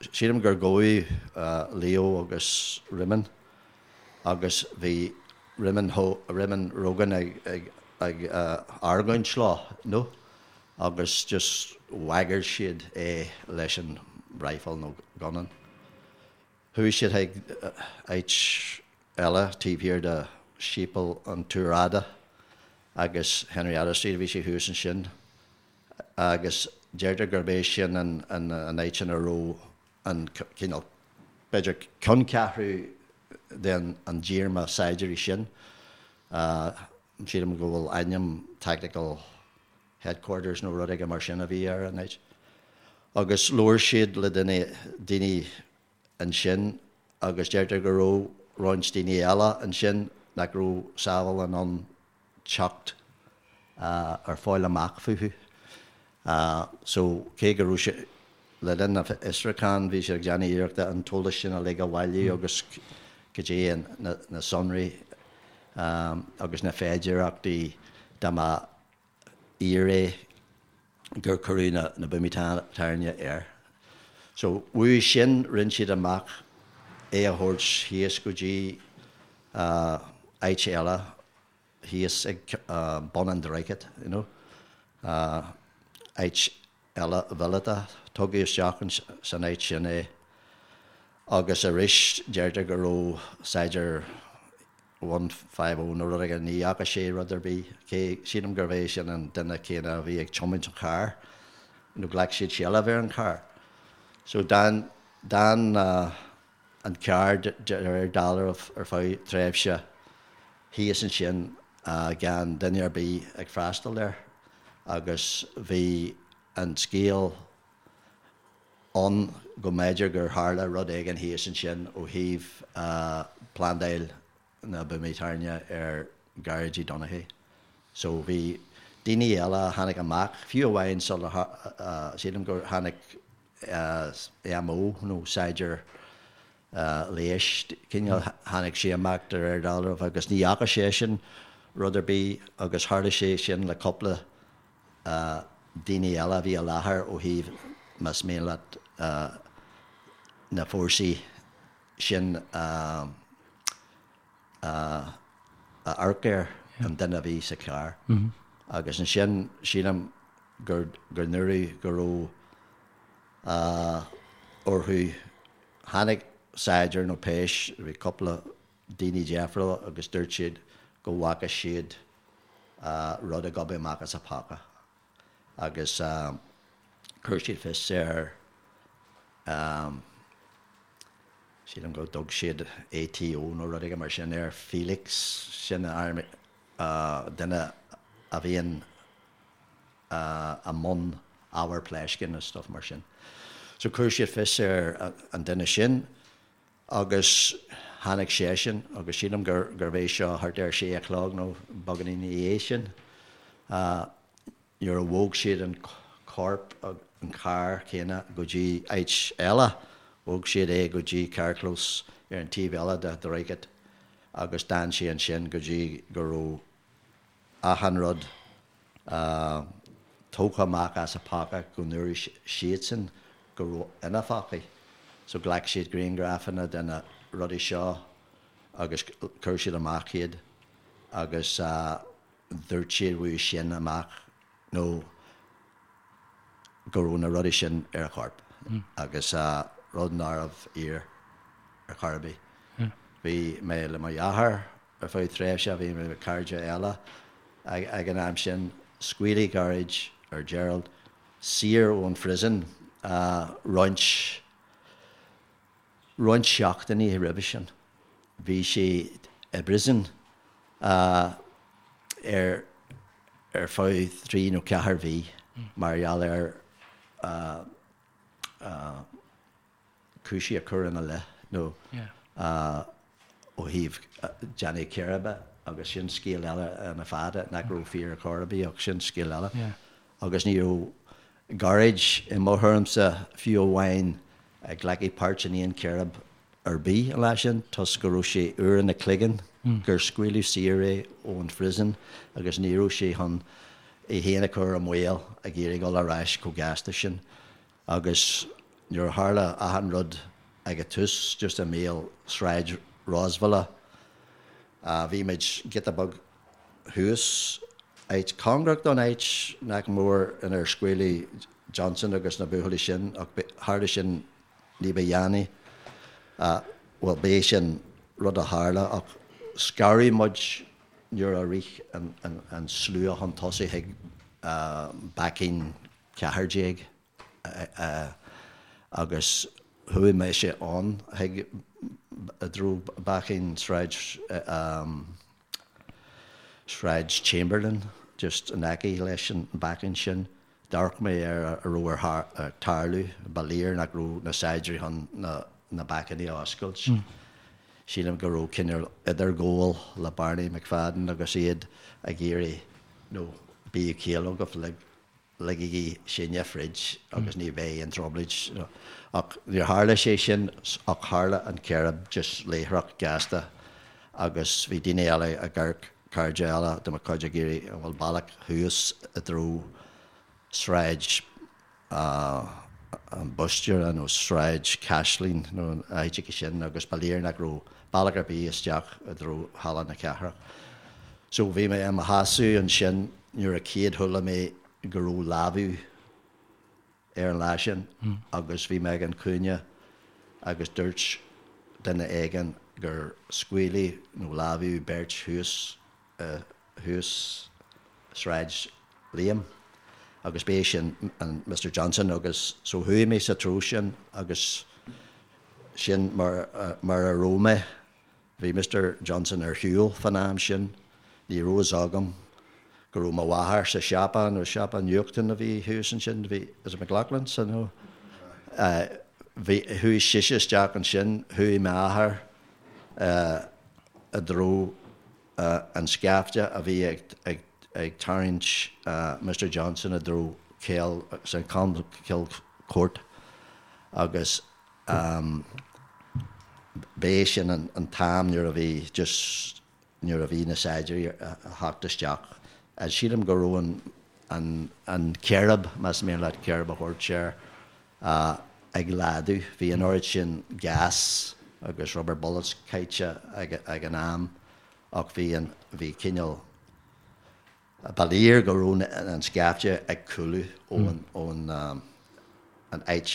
sílim gur gabhadh Leo agus Réamonn agus bhí Réamonn, Réamonn Rogan ag, ag, ag argóint leo, no? Agus just bhagair siad é leis an rifle nó gunna. Chuaigh siad chuig áit eile taobh thiar de Séipéal an Túir Fhada agus Henrietta Street a bhí sé thuas ansin agus deirtear gurb é sin an áit ina raibh an cineál, b'fhéidir ceanncheathrú den an díorma saighdiúirí sin. Sílim go bhfuil ainm Tactical Headquarters nó rud éigin mar sin a bhí ar an áit. Agus labhair siad le duine, daoine ansin agus deirtear go raibh roinnt daoine eile ansin nach raibh Saville in ann teacht ar fáil amach fúthu. So, cé go raibh sé, le linn na bhfiosrúchán, bhí siad ag déanamh iarrachta an t-eolas sin uilig a bhailiú agus cad é na sonraí agus na féidearthachtaí dá mba fhíor é gur cuireadh na buamaí tairne air. So, uaidh sin, rinne siad amach é a thabhairt thíos go dtí áit eile thíos ag bun an droichid, you know, áit eile mhíleata. Tugadh isteach san áit sin é agus arís deirtear go raibh saighdiúir 150 nó rud éigin, ní fhaca sé rud ar bith, cé, sílim gurbh é sin an duine céanna a bhí ag tiomáint an chairr, nó ghlac siad seilbh ar an charr. So d'fhan, d'fhan an carr de réir dealraimh ar feadh tréimhse thíos ansin gan duine ar bith ag freastal air agus bhí an scéal ann go mb'fhéidir gur tharla rud éigin thíos ansin ó thaobh plandáil na buamaí tairne ar Ghearóid Donaghy. So bhí daoine eile a tháinig amach, fiú amháin sular, sílim gur tháinig MO nó saighdiúir leighis, cineál, tháinig sé amach de réir dealraimh agus ní fhaca seisean rud ar bith agus tharla sé sin le cúpla daoine eile a bhí i láthair ó thaobh, más mian leat, na fórsaí sin a amharc ar an duine a bhí sa charr. Agus ansin sílim gur dúradh go raibh orthu, tháinig saighdiúir nó péis, bhí cúpla daoine difriúla agus dúirt siad go bhfaca siad rud ag gobadh amach as a phóca agus chuir siad fios ar, sílim go dtug siad ATO nó rud éigin mar sin air, Felix, sin duine a bhíonn i mbun ábhar pléascáin is stuff mar sin. So chuir siad fios ar an duine sin agus tháinig seisean agus sílim gur gurbh é seo thart ar sé a chlog nó beagáinín ina dhiaidh sin nuair a bhog siad an corp an carr céanna go dtí áit eile, bhog siad é go dtí carrchlós ar an taobh eile de dhroichead agus d'fhan sé ansin go dtí go raibh achan rud tógtha amach as a phóca go ndúirt siadsan go raibh ina phócaí. So ghlac siad grianghrafanna de na rudaí seo agus chuir siad amach iad agus dúirt siad uaidh sin amach nó go raibh na rudaí sin ar a chorp agus rud nárbh fhíor ar chor ar bith. Bhí mé le mo dheartháir Ar feadh tréimhse bhí mé le cairde eile ag an am sin. Scaoileadh Gearóid or Gerald saor ón phrison roinnt roinnt seachtainí roimhe sin. Bhí sé i bprison ar ar feadh trí nó ceathair mhí mar gheall ar cúinsí a cuireadh ina leith nó ó thaobh déanamh círéibe agus sin scéal eile ina fada nach raibh fíor ar chor ar bith ach sin scéal eile. Agus ní raibh Gearóid i mo thuairimse fiú amháin ag glacadh páirt in aon chíréib ar bith an lá sin toisc go raibh sé úr ina chloigeann gur scaoileadh saor é ón phrison agus ní raibh sé chun é féin a chur i mbaol ag iarraidh dul ar ais chomh gasta sin. Agus nuair a tharla achan rud ag a tús, just i mbéal Sráid Rosevilla, bhí muid giota beag thuas, áit cóngarach don áit nach mór inar scaoileadh Johnson agus na buachaillí sin, ach tharla sin ní ba dhéanaí. Bhuel, b'é sin rud a tharla, ach scaradh muid nuair a rith an slua chun tosaigh chuig baicín 14 agus chuaigh mise ann chuig i dtreo baicín Sráid Sráid Chamberlain just in aice leis an baicín sin. D'amharc mé ar a raibh ag tarlú. Ba léir nach raibh na saighdiúirí chun na baicíní a oscailt. Sílim go raibh cineál idirghabháil le Barney McFadden agus iad ag iarraidh nó bíodh ciall agaibh le. ligigí sinne fríd agus ní bheidh aon trioblóid. Ach níor tharla sé sin ach tharla an círéib just láithreach gasta agus bhí daoine eile ag amharc, cairde eile de mo chuid ag iarraidh an bhfuil bealach thuas i dtreo Sráid an Bhuiséara nó Sráid Chaisleáin nó an áit sin agus ba léir nach raibh bealach ar bith isteach i dtreo Halla na Cathrach. So bhí mé i mo sheasamh ansin nuair a chéad chuala mé go raibh lámhach ar an lá sin agus bhí mé ag an chúinne agus dúirt duine éigin gur scaoileadh nó lámhachadh beirt thuas thuas Sráid Liam agus b'é sin an Mr Johnson agus so chuaigh mé sa treo sin agus sin mar mar a raibh mé. Bhí Mr Johnson ar shiúl fán am sin. Ní raibh fhios agam go raibh mo mháthair sa siopa nó siopa nuachtáin a bhí thuas ansin, bhí, is it McLaughlin's nó bhí, chuaigh sise isteach ansin, chuaigh m'athair i dtreo an scaifte a bhí ag tarraingt Mr Johnson i dtreo Cill St Colmcille Court agus b'é sin an t-am nuair a bhí just nuair a bhí na saighdiúirí ag theacht isteach. Sílim go raibh an an círéib, más mian leat círéib a thabhairt air, ag laghdú. Bhí an oiread sin gas agus rubber bullets caite ag an am ach bhí an, bhí cineál, ba léir go raibh an scaifte ag cúlú ón, ón an áit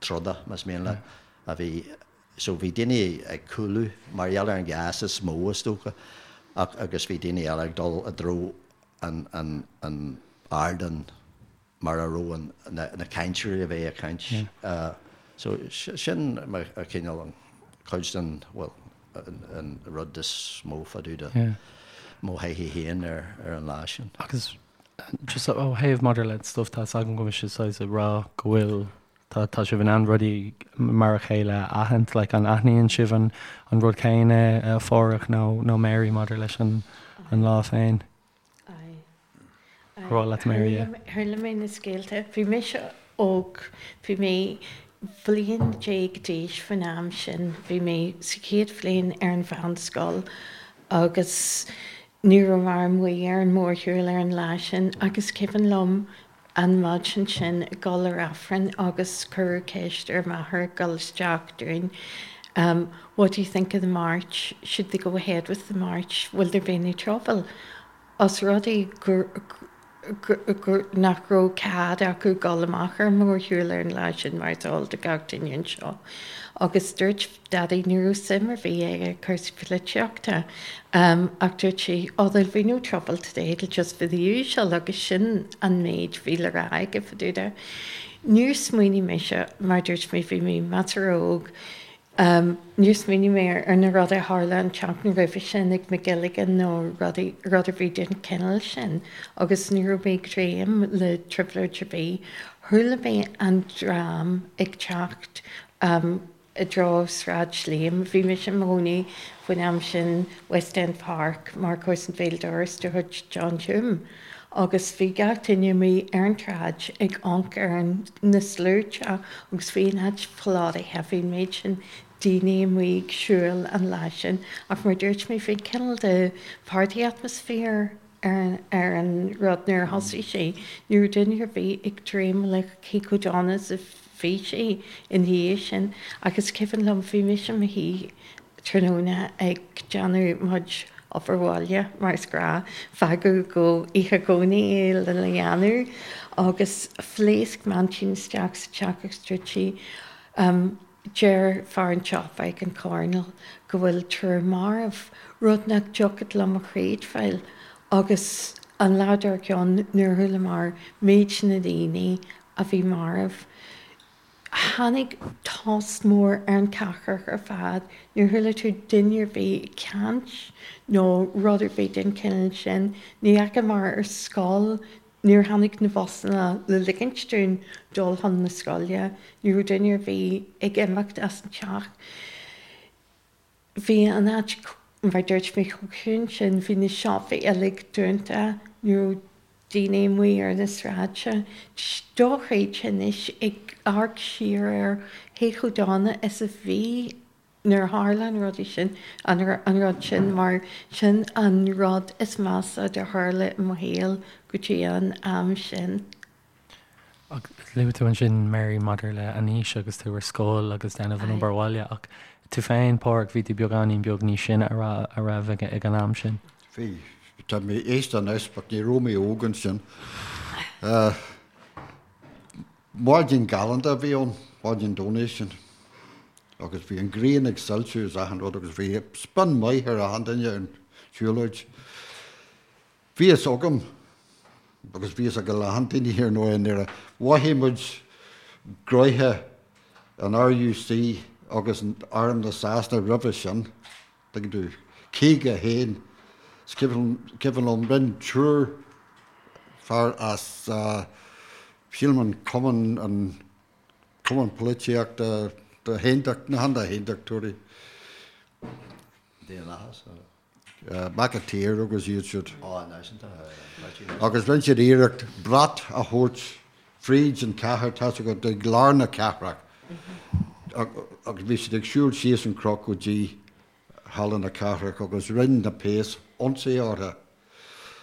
troda, más mian leat, a bhí, so bhí daoine ag cúlú mar gheall ar an gas is mó is dócha ach agus bhí daoine eile ag dul i dtreo an, an, an ardán. mar a raibh an, na cainteoirí a bheith ag caint. So sin cineál an cuid den, bhuel, an rud is mó fá dtaobh de mo thaithí féin ar an lá sin. Agus just ó thaobh maidir le stuff, tá 'fhios agam go bhfuil sibh saghas ag rá go bhfuil, tá tá sibh in ann rudaí mar a chéile a aithint, like an aithníonn sibh an an rud céanna a Pháraic nó nó Mary maidir leis an an lá féin? Ar mhaith leat Mary a. Chuala mé na scéalta. Bhí mise óg, bhí mé bliain déag d'aois faoin am sin. Bhí mé sa chéad bhliain ar an mheánscoil agus ní rabhamar amuigh ar an mórshiúl ar an lá sin ach is cuimhin liom an mhaidin sin ag dul ar Aifreann agus cuireadh ceist ar m'athair ag dul isteach dúinn What do you think of the march? Should they go ahead with the march? Will there be any trouble? Os rud é gur gur nach raibh cead acu dul amach ar an mórshiúl ar an lá sin mar is eol do gach duine anseo. Agus dúirt Daidí ní raibh suim ar bith aige i cúrsaí polaitíochta ach dúirt sé oh there'll be no trouble today, it'll just be the usual agus sin an méid a bhí le rá aige fá dtaobh de. Níor smaoinigh mise, mar dúirt mé bhí mé measartha óg, níor smaoinigh mé ar na rudaí a tharla an tseachtain roimhe sin ag McGilligan nó rudaí, rud ar bith den chineál sin agus ní raibh mé ag dréim le trioblóid ar bith. Chuala mé an dream ag teacht i dtreo Sráid Liam. Bhí mise i mo chónaí faoin am sin West End Park mar comharsan béal dorais de chuid John Hume agus bhí gach duine amuigh ar an tsráid ag amharc ar na sluaite agus bhí an áit plódaithe, bhí an méid sin daoine amuigh ag siúl an lá sin ach mar a dúirt mé bhí cineál de party atmosphere ar an rud nuair a thosaigh sé. Ní raibh duine ar bith ag dréim le cé chomh dona is a bhí sé ina dhiaidh sin. Ach is cuimhin liom, bhí mise i mo shuí tráthnóna ag déanamh mo chuid obair bhaile, mar is gnáth, fágadh go oíche Dhomhnaigh é lena dhéanamh, agus phléasc m'aintín isteach sa teach agus dúirt sí, Deir fear an tsiopa ag an choirnéal go bhfuil triúr marbh, rud nach dtiocfadh liom a chreidbheáil. Agus an lá dár gcionn nuair a chualamar méid na ndaoine a bhí marbh, tháinig tost mór ar an chathair ar fad. Níor chuala tú duine ar bith ag caint nó rud ar bith den chineál sin. Ní dheachamar ar scoil Níor tháinig na busanna le ligint dúinn dul chun na scoile. Ní raibh duine ar bith ag imeacht as an teach. Bhí an áit, mar a dúirt mé, chomh ciúin sin. Bhí na siopaí uilig dúnta. Ní raibh. daoine amuigh ar na sráide. Dochreidte anois ag amharc siar air cé chomh dona is a bhí nuair a tharla an rud sin, an rud sin mar sin an rud is measa a tharla i mo shaol go dtí an am sin. Luaigh tú ansin, Mary, maidir le an aois agus tú ar scoil agus déanamh an obair bhaile ach tú féin, Páraic, bhí tú beagáinín beag níos sine a raibh ag an am sin. Bhí. Tá mé aosta anois but ní raibh mé óg ansin. Maidin galánta a bhí ann, maidin Domhnaigh sin agus bhí an ghrian ag soilsiú is achan rud agus bhí spion maith ar achan duine ar an siúlóid. Bhí fhios agam, agus bhí fhios ag a lán daoine ar ndóigh i nDoire, mhothaigh muid gnoithe an RUC agus Arm na Sasana roimhe sin, tuigeann tú, 51, is cuimhin liom, rinne triúr fear as, sílim an cumann, an cumann polaitíochta do haontacht, na haontachtóirí. Daonlathas. McAteer agus iad siúd. Agus rinne siad iarracht brat a thabhairt fríd an chathair, tá's agat, ag lár na cathrach. Agus bhí siad ag siúl síos an cnoc go dtí Halla na Cathrach agus rinne na péas ionsaí orthu.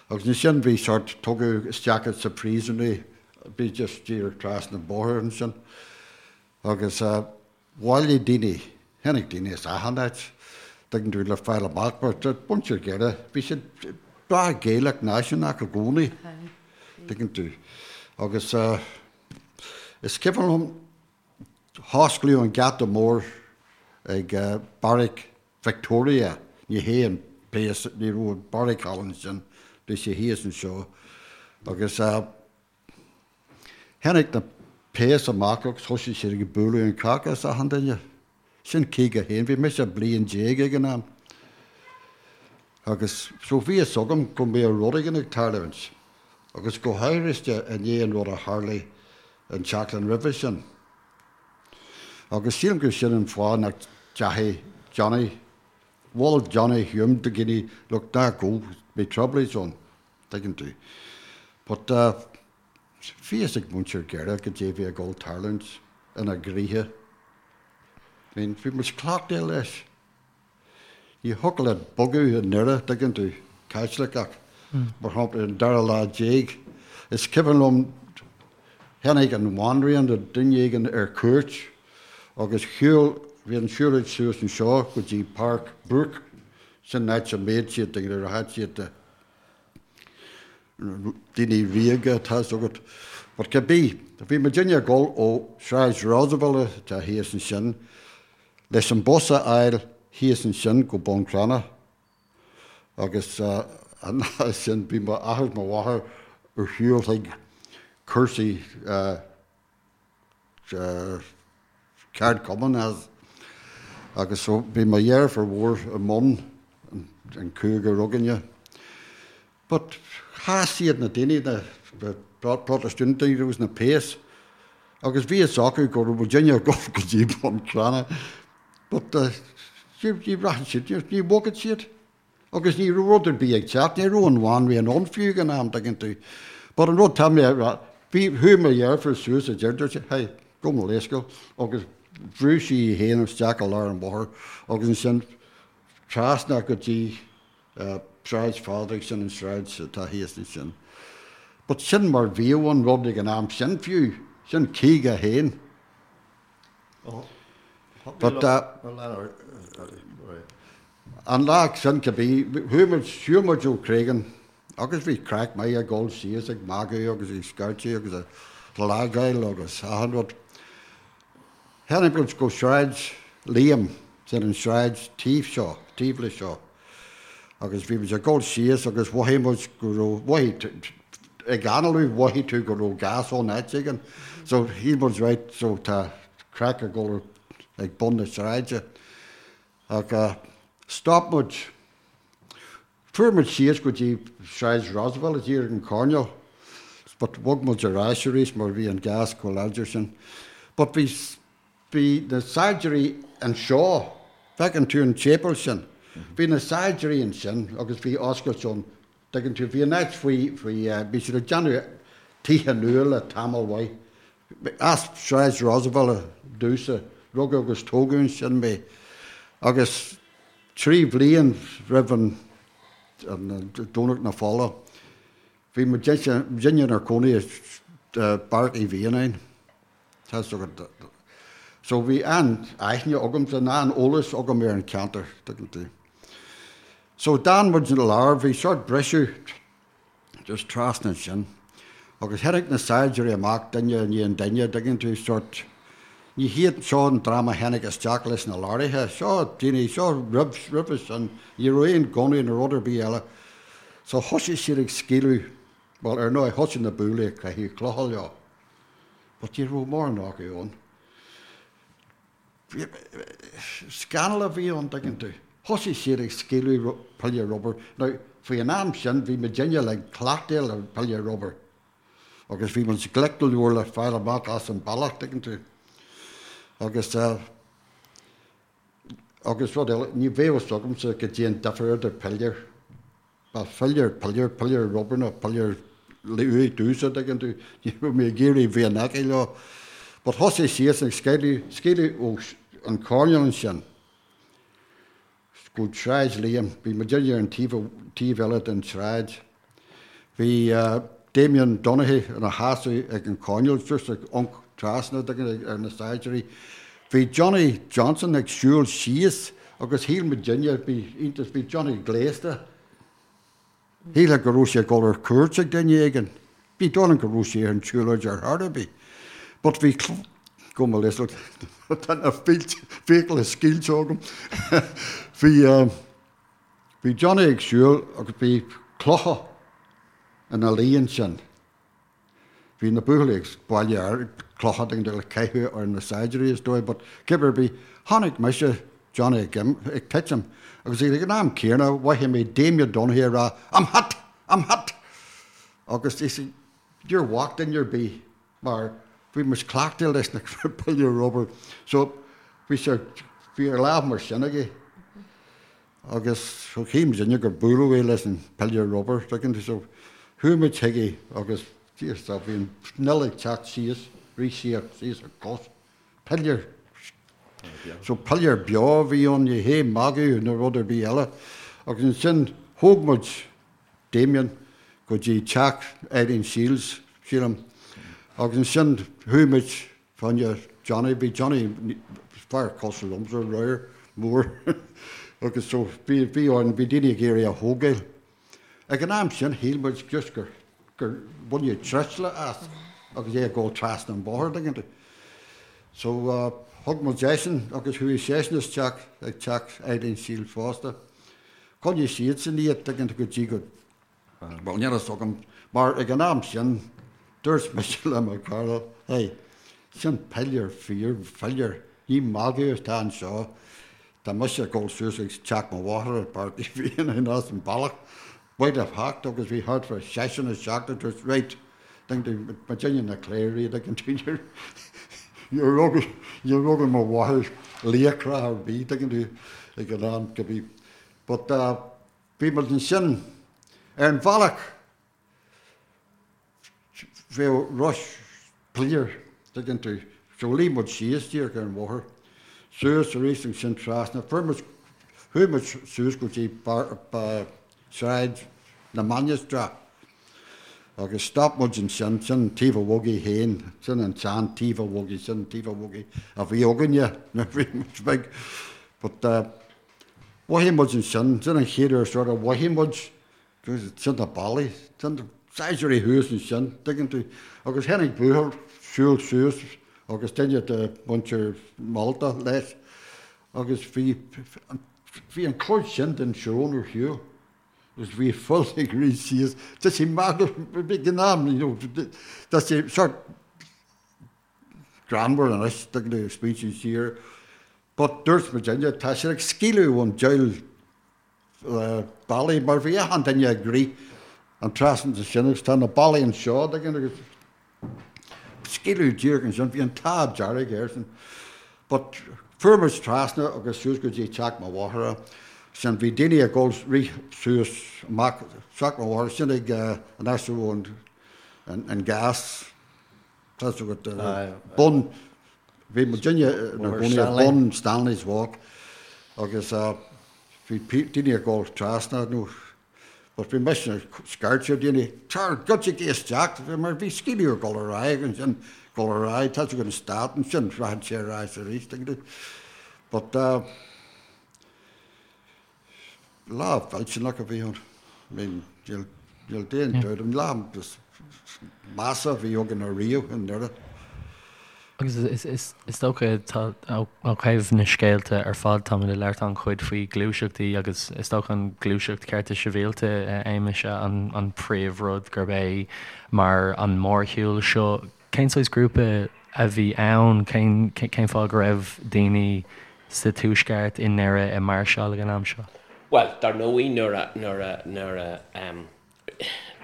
Agus ansin bhí sort, tugadh isteach sa príosún é, bhí just díreach trasna an bóthar ansin. Agus. Bhailigh daoine, tháinig daoine as achan áit, tuigeann tú, le fáil amach, mar muintir Dhoire, bhí siad breá Gaelach náisiúnach i gcónaí, tuigeann tú. Agus is cuimhin liom, hosclaíodh an geata mór ag Beairic Victoria, ní hé an péas, ní raibh an beairic thall ansin, bhí sé thíos anseo. Agus. Tháinig na péas amach agus thosaigh siad ag bualadh an caca as achan duine. Sin 51, bhí mise bliain déag ag an am. Agus so bhí fhios agam go mbeadh rud éigin ag tarlúint. Agus go háirithe i ndiaidh an rud a tharlaigh an tseachtain roimhe sin. Agus sílim gur sin an fáth nach dteachaigh Johnny, mhol Johnny Hume do dhaoine, look, ná gabh, beidh trioblóid ann. Tuigeann tú. But bhí fhios ag muintir Dhoire goidé bhí ag dul tarlúint ina gcroíthe. I mean, bhí muid cleachtaithe leis. Ní thiocfadh leat bogadh i nDoire, tuigeann tú, Caitliceach, mar shampla, ar an dara lá déag. Is cuimhin liom, tháinig an bhanríon nó duine éigin ar cuairt agus shiúil, bhí an siúlóid suas anseo go dtí Páirc Brooke, sin an áit a mbíodh siad, tuigeann tú, rachadh siad de. daoine ríoga, tá's agat. But cibé, bhí muidinne ag dul ó Sráid Roosevelt atá thíos ansin, leis an bus a fháil thíos ansin go Bun Cranncha. Agus an lá sin bhí m'athair is mo mháthair ar shiúl chuig cúrsaí ceardchumann as agus so bhí mo dheirfiúr mhór i mbun an cúigear againne. But chas siad na daoine, na Protastúnaigh agus na péas agus bhí fhios acu go raibh muidinne ag dul go dtí Bun Cranncha but ní rachadh siad, ní bhogfadh siad. Agus ní raibh rud ar bith ag teacht, ní raibh an bhanríon ann fiú ag an am, tuigeann tú. But an rud tá mé a rá, bhí, chuaigh mo dheirfiúr suas a deir, dúirt sí, hey, gabh mo leithscéal, agus bhrú sí í féin isteach i lár an bhóthair agus ansin trasna go dtí Sráid Phádraig, sin an sráid atá thíos ansin. But sin mar bhíodh an rud ag an am sin fiú, sin 51. But an lá sin cibé, chuaigh muid, shiúil muid ó Creggan agus bhí craic maith ag dul síos ag magadh agus ag scairteadh agus ag lágáil agus achan rud. Tháinig muid go Sráid Liam, sin an sráid taobh seo, taobh le seo. Agus bhí muid ag dul síos agus mhothaigh muid go raibh, mhothaigh, ag análú mhothaigh tú go raibh gas ann áit éigin. So shíl muid right, so tá craic ag dul ag bun na sráide. Ach stop muid, fuair muid síos go dtí Sráid Roosevelt díreach an coirnéal, but bhog muid ar ais arís mar bhí an gas chomh láidir sin. But bhí Bhí na saighdiúirí anseo, feiceann tú an tséipéal sin, bhí na saighdiúirí ansin agus bhí oscailt ann, Tuigeann tú, bhí an áit faoi, faoi, bhí siad ag déanamh tithe nua le tamall mhaith. As Sráid Roosevelt domhsa, rugadh agus tógadh ansin mé. Agus 3 bhliain roimh an, an Domhnach na Fola, bhí muidinne inár gcónaí i Beairic Uí Mhianáin. Tá 'fhios agat. So bhí an-aithne agamsa, an-eolas agam ar an cheantar, tuigeann tú. So d'fhan muid ina lár, bhí sort briseadh just trasna ansin. Agus tháinig na saighdiúirí amach duine i ndiaidh an duine, tuigeann tú, sort, ní hiad seo an dream a tháinig isteach leis na lorraithe, seo daoine, seo roimh, roimhe sin, ní raibh aon gunnaí nó rud ar bith eile. So thosaigh siad ag scaoileadh, bhuel ar ndóigh thosaigh na buachaillí ag caitheamh clocha leo. But ní raibh mórán acu ann. Scannal a bhí ann, tuigeann tú. Thosaigh siad ag scaoileadh piléar rubair. Now, faoi an am sin, bhí muidinne like cleachtaithe le piléar rubair. Agus bhí muid glic go leor le fáil amach as an bealach, tuigeann tú. Agus, agus rud eile, ní bheadh fhios agamsa goidé an difear idir piléar. Ba philéar piléar, piléar rubair nó piléar uaidh domhsa, tuigeann tú, ní raibh mé ag iarraidh bheith in aice leo. But thosaigh siadsan ag scaoileadh, scaoileadh ó an choirnéal ansin go Sráid Liam, bhí muidinne ar an taobh, taobh eile den tsráid. Bhí Damien Donaghy ina sheasamh ag an choirnéal, just ag amharc trasna, tuigeann tú, ar na saighdiúirí. Bhí Johnny Johnson ag siúl síos agus shíl muidinne, bhí iontas, bhí Johnny gléasta, shílfeá go raibh sé ag dul ar cuairt ag duine éigin. Ní dóigh liom go raibh sé ar an tsiúlóid ar chor ar bith. But bhí, gabh mo leithscéal, tá na fiacla scaoilte agam. Bhí, bhí Johnny ag siúl agus bhí clocha ina luí ansin. Bhí na buachaillí ag bailiú clocha le caitheamh ar na saighdiúirí is dóigh but cibé ar bith, chonaic mise Johnny ag ag titim agus ag an am céanna mhothaigh mé Damien Donaghy ag rá I'm hit! I'm hit! Agus is níor bhac duine ar bith mar bhí muid cleachtaithe leis na piléir rubair so bhí sé bhí a lámh mar sin aige. Agus shíl muidinne gur buaileadh é leis an piléar rubair, tuigeann tú, so chuaigh muid chuige agus Dia is bhí an fhuil ag teacht síos, rith síos, síos a cos, piléar, so piléar beo a bhí ann, ní hé magadh nó rud ar bith eile. Agus ansin thóg muid Damien go dtí teach Eileen Shields, sílim, agus ansin chuaigh muid Fá choinne Johnny, bhí Johnny fear cosúil liomsa, ramhar, mór agus so bhí, bhí orainn, bhí daoine ag iarraidh a thógáil. Ag an am sin shíl muid just gur, gur baineadh truisle as agus é ag dul trasna an bóthar, tuigeann tú. So thug muid eisean agus chuaigh seisean isteach ag teach Eileen Shields fosta. Choinnigh siadsan iad, tuigeann tú, go dtí go Bhuel, níl a fhios agam, mar ag an am sin, dúirt mise le mo chara, hey, sin piléar fíor, philéar, ní magadh atá anseo, tá mise ag dul suas ag teach mo mháthar i bPáirc Uí Mhianáin as an bealach, buail a hocht agus bhí thart fá seisean isteach agus dúirt, right, muidinne na cléirigh, tuigeann tú, níor rug, níor rug mo mháthair laochra ar bith, tuigeann tú, ag an am, go bhí, but, Bhí muid ansin ar an bhealach bheadh rois piléar, tuigeann tú. So luigh muid síos díreach ar an bhóthar, suas arís ansin trasna, fuair muid, chuaigh muid suas go dtí Sráid na Mainistreach agus stop muid ansin, sin Taobh an Bhogaigh féin, sin an tsean Taobh an Bhogaigh, sin Taobh an Bhogaigh a bhí againne nuair a bhí muid beag. But Mhothaigh muid ansin, sin an chéad uair sort of mhothaigh muid, sin na ballaí, sin na saighdiúirí thuas ansin, tuigeann tú. Agus tháinig buachaill siúl suas agus duine de mhuintir Mhalta leis agus bhí, bhí an chuid sin den srón ar shiúl agus bhí fuil ag rith síos. Tá sé magadh, ag an am, you know, tá sé sort greannmhar anois, tuigeann tú, ag smaointiú siar. But dúirt muidinne, tá siad ag scaoileadh ón diabhal ballaí mar bhí achan duine ag rith an trasna sin agus tá na ballaí anseo, tuigeann tú, agus scaoileadh díreach ansin, bhí an t-ádh dearg airsean. But fuair muid trasna agus suas go dtí teach mo mháthara. Sin bhí daoine ag dul rith suas amach isteach an bhóthar sin ag an áit a raibh an gas tá 's agat bun bhí muidinne inár gcónaí ag bun Stanley's Walk agus bhí daoine ag dul trasna nó but bhí mise ag scairteadh ar daoine tar goitsigí isteach mar bhí scaoileadh ag dul ar aghaidh ansin dul ar aghaidh tá 's agat an stát ansin rachadh sé ar aghaidh arís but Lá mhillteanach a bhí ann. I mean, níl, níl aon dabht, an lá is measa a bhí againn ariamh i nDoire. Agus is dócha, tá, ó thaobh na scéalta ar fad, táimid ag labhairt an-chuid faoi ghluaiseachtaí agus is dócha an ghluaiseacht cearta sibhialta, a Shéamais, an príomhrud gurb é mar an mórshiúl seo. Cén saghas grúpa a bhí ann? Cén cén fáth go raibh daoine sa Tuaisceart, i nDoire, ag máirseáil ag an am seo? Bhuel, dar ndóigh, nuair a, nuair a, nuair a, em,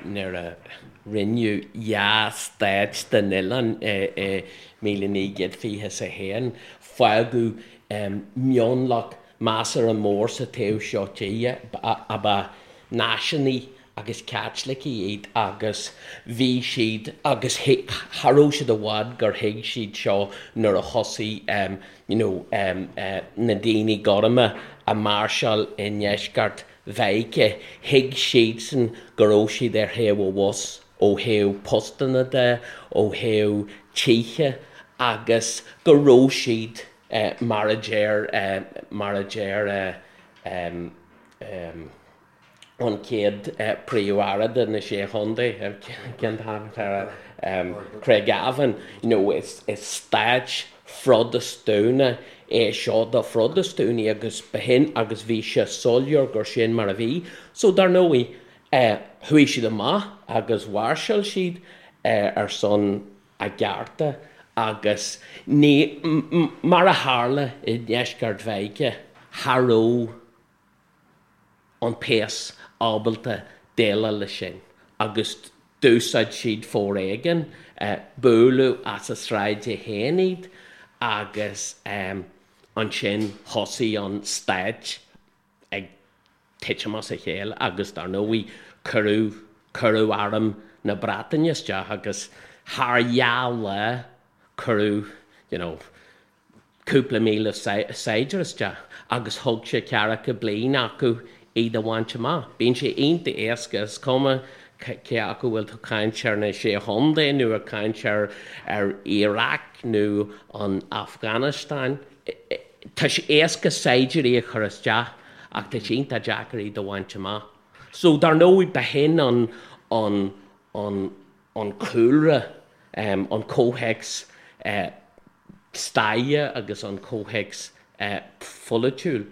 nuair a rinneadh dhá stát den oileán i, i 1921, fágadh, em, mionlach measartha mór sa taobh seo tíre a ba náisiúnaigh agus Caitlicigh iad agus bhí siad agus cha raibh siad i bhfad gur thuig siad seo nuair a thosaigh you know na daoine gorma a máirseáil i ndeisceart Mheiriceá, thuig siadsan go raibh siad ar thaobh an bhus ó thaobh postanna de, ó thaobh tithe agus go raibh siad mar a deir mar a deir an chéad Príomh-Aire de na Sé Chontae, cén t-ainm atá air, Craigavon, you know, is stáit Phrotastúnach é seo do Phrotastúnaigh agus b'shin agus bhí sé soiléir gur sin mar a bhí. So dar ndóigh, chuaigh siad amach agus mháirseáil siad ar son a gcearta agus ní, mar a tharla i ndeisceart Mheiriceá, cha raibh an péas ábalta déileáil leis sin agus d'úsáid siad foréigean, buaileadh as a sráide féin iad agus ansin thosaigh an stát ag titim as a chéile agus dar ndóigh cuireadh, cuireadh arm na Breataine isteach agus thar dhá lá cuireadh you know cúpla míle saighdiúir isteach agus thóg sé ceathracha bliain acu iad a bhaint amach. Bíonn sé iontach éasca, is cuma cé acu bhfuil tú ag caint ar na Sé Chontae nó ag caint ar ar Iraq nó an Afganastáin, tá sé éasca saighdiúirí a chur isteach ach tá sé iontach deacair iad a bhaint amach. So dar ndóigh b'shin an an an an cúlra, an comhthéacs staire agus an comhthéacs pholaitiúil.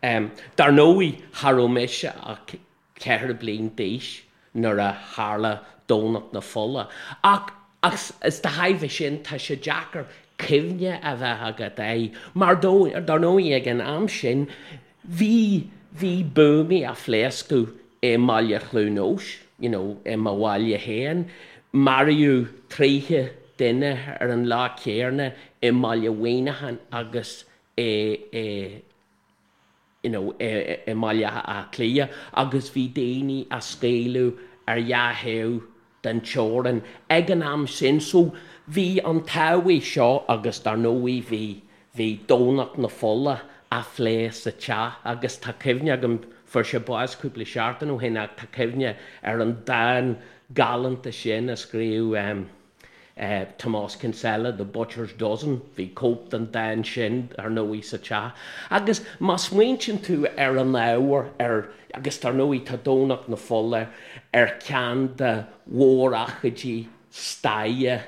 Dar ndóigh, cha raibh mise ach 4 bliain d'aois nuair a tharla Domhnach na Fola, ach is de thairbhe sin tá sé deacair cuimhne a bheith agat air, mar dar ndóigh ag an am sin Bhí, bhí buamaí á phléascadh i mbaile Chluain Eois, you know, i mo bhaile féin. Maraíodh 30 duine ar an lá céanna i mbaile Mhuineacháin agus i, i, you know, i, i mBaile Átha Cliath agus bhí daoine á scaoileadh ar dhá thaobh den teorainn ag an am sin. So bhí an tábhacht seo agus dar ndóigh bhí, bhí Domhnach na Fola á phlé sa teach agus tá cuimhne agam, fuair sé bás cúpla seachtain ó shin ach tá cuimhne ar an dán galánta sin a scríobh Tomás Kinsella, The Butcher's Dozen, bhí cóip den dán sin ar ndóigh sa teach. Agus má smaointíonn tú ar an ábhar, ar, agus dar ndóigh tá Domhnach na Fola ar cheann de mhórócáidí staire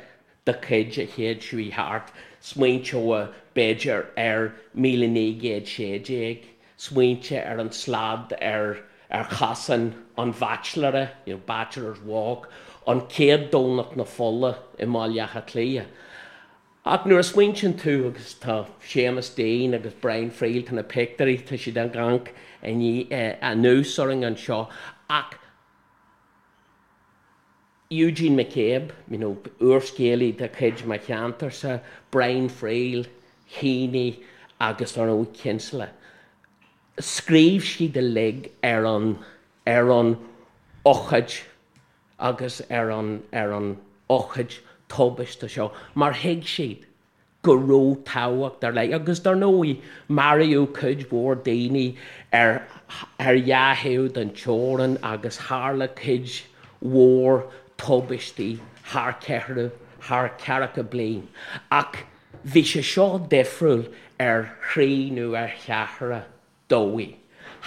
de chuid an chéid seo thart, smaointeofá b'fhéidir ar 1916, smaointe ar an slad ar ar chosán an bhaitsiléara, you know, Bachelor's Walk, an chéad Domhnach na Fola i mBaile Átha Cliath. Ach nuair a smaointíonn tú, agus tá Séamus Deane agus Brian Friel, tá na pictiúirí, tá siad ag amharc anuas orainn anseo, ach Eugene McCabe, you know, úrscéalaí de chuid mo cheantarsa, Brian Friel, Heaney agus ar ndóigh Kinsella. Scríobh siad uilig ar an ar an ócáid agus ar an ar an ócáid tubaiste seo mar thuig siad go raibh tábhacht ar leith agus dar ndóigh maraíodh cuid mhór daoine ar ar dhá thaobh den teorainn agus tharla cuid mhór tubaistí thar ceithre thar ceathracha bliain ach bhí sé seo difriúil ar thrí nó ar cheathra dóigh.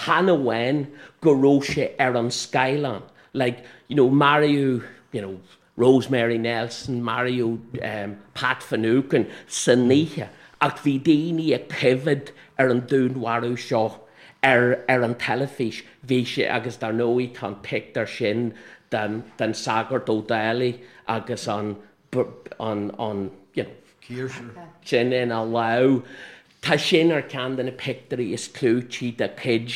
Chan amháin go raibh sé ar an scáileán, like, you know, maraíodh, you know, Rosemary Nelson, maraíodh Pat Finucane san oíche ach bhí daoine ag coimhéad ar an dúnmharú seo ar ar an teilifís. Bhí sé, agus dar ndóigh tá an pictiúr sin den den sagart Ó Dálaigh agus an an an you know, Cíosar. sin ina lámh. Tá sin ar cheann de na pictiúirí is clúití de chuid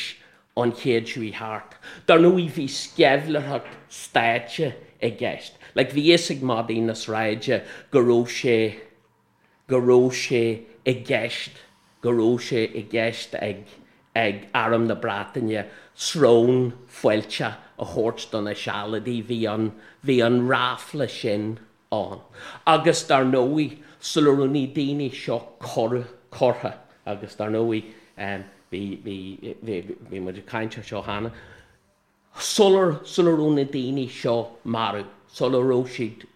an chéid seo thart. Dar ndóigh bhí sceimhlitheoireacht stáit i gceist. Like bhí fhios ag madaí na sráide go raibh sé, go raibh sé i gceist, go raibh sé i gceist ag, ag Arm na Breataine srón fuilteach a thabhairt do na Sealadaigh. Bhí an, bhí an ráfla sin ann. Agus dar ndóigh, sula raibh na daoine seo curtha, agus dar ndóigh, bhí, bhí, bhí, bhí muid ag caint ar seo cheana, sular, sula raibh na daoine seo marbh, sula raibh siad,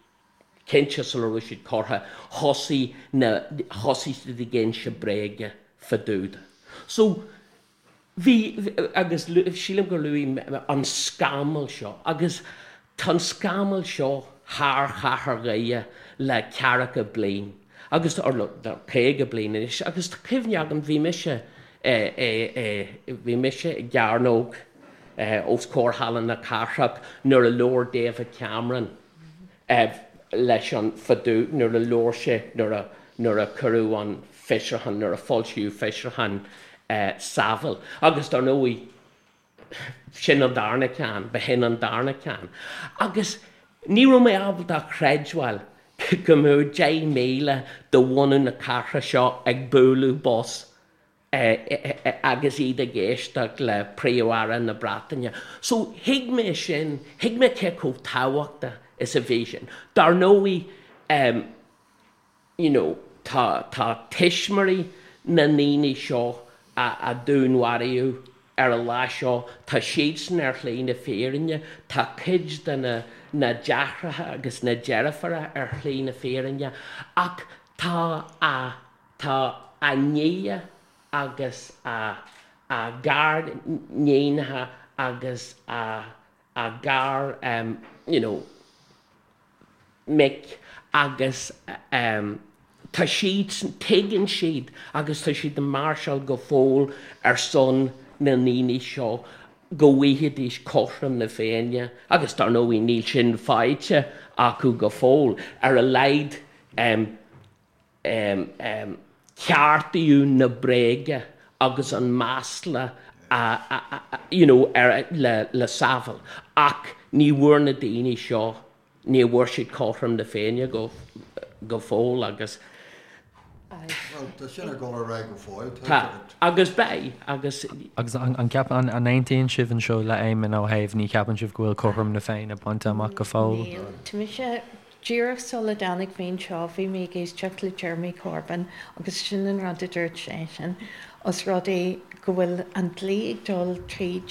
cinnte sula raibh siad curtha, thosaigh na, thosaigh siad ag inse bréaga fá dtaobh de. So, Bhí, agus sílim gur luaigh mé an scamall seo, agus tá an scamall seo thar chathair Dhoire le ceathracha bliain, agus, or le 50 bliain anois, agus tá cuimhne agam, bhí mise, bhí mise i gcearnóg os comhair Halla na Cathrach nuair a labhair David Cameron leis an fá dtaobh nuair a labhair sé nuair a nuair a cuireadh an fiosrúchán nuair a foilsíodh fiosrúchán Saville agus dar ndóigh sin an darna ceann b'shin an darna ceann agus ní raibh mé ábalta a chreidbheáil go mbeadh 10,000 de bhunadh na cathrach seo ag bualadh bos agus iad ag éisteacht le Príomh-Aire na Breataine. So thuig mé sin, thuig mé cé chomh tábhachtach is a bhí sin. Dar ndóigh, you know, tá, tá tuismitheoirí na ndaoine seo a, a dúnmharaíodh ar an lá seo, tá siadsan ar shlí na fírinne, tá cuid de na, na deartháireacha agus na deirfiúracha ar shlí na fírinne ach tá a, Tá a nia agus a a gariníonacha agus a a gar you know mic agus tá siadsan, tuigeann siad agus tá siad ag máirseáil go fóill ar son na ndaoine seo go bhfaighidís cothrom na Féinne agus dar ndóigh níl sin faighte acu go fóill, ar a laghad ceartaíodh na bréaga agus an masla a you know ar le le Saville ach ní bhfuair na daoine seo ní bhfuair siad cothrom na Féinne go go fóill agus Bhuel tá sin ag dul ar aghaidh go fóill tá agus beidh agus. Agus an ceapann an aontaíonn sibh anseo le Éamonn ó thaobh ní cheapann sibh go bhfuil cothrom na Féinne bainte amach go fóill? Níl. Tá mise Díreach sula dtáinig mé anseo bhí mé ag éisteacht le Jeremy Corbyn agus sin an rud a dúirt seisean, os rud é go bhfuil an dlí ag dul tríd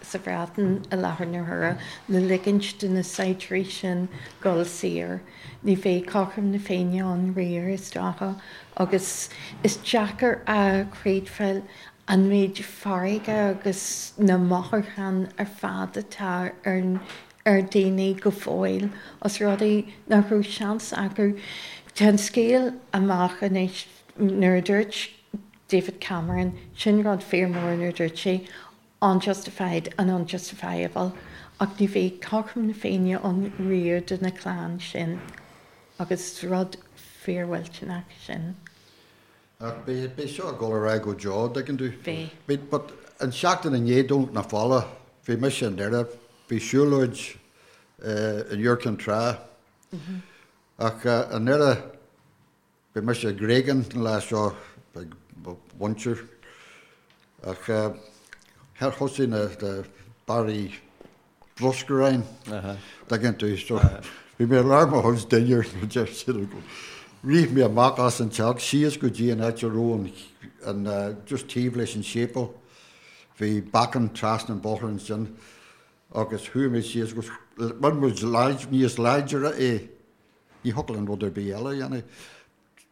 sa Bhreatain i láthair na huaire le ligint do na saighdiúirí sin dul saor, ní bheidh cothrom na Féinne ann riamh is dócha agus is deacair a chreidbheáil an méid fearga agus na mothúcháin ar fad atá ar ar daoine go fóill, os rud é nach raibh seans acu. Tá an scéal amach anois, nuair a dúirt David Cameron, sin rud fíor mór nuair a dúirt sé unjustified and unjustifiable ach ní bheidh cothrom na Féinne ann riamh do na clann sin agus rud fíormhillteanach sin. Ach beidh, beidh seo ag dul ar aghaidh go deo, an dtuigeann tú. Beidh. Bhí, but an seachtain i ndiaidh Domhnach na Fola, bhí mise i nDoire, bhí siúlóid in Iúr Cinn Trá. Ach i nDoire, bhí mise i nGreagán an lá seo ag mo mhuintir. Ach thosaigh na barraí bruscair ann, dtuigeann tú, so bhí mé i lár mo chuid dinnéir nó deir siad go rith mé amach as an teach síos go dtí an áit a raibh an, just taobh leis an séipéal, bhí bacáin trasna an bóthar ansin agus chuaigh mé síos agus rinne muid níos láidre é, ní thiocfadh linn rud ar bith eile a dhéanamh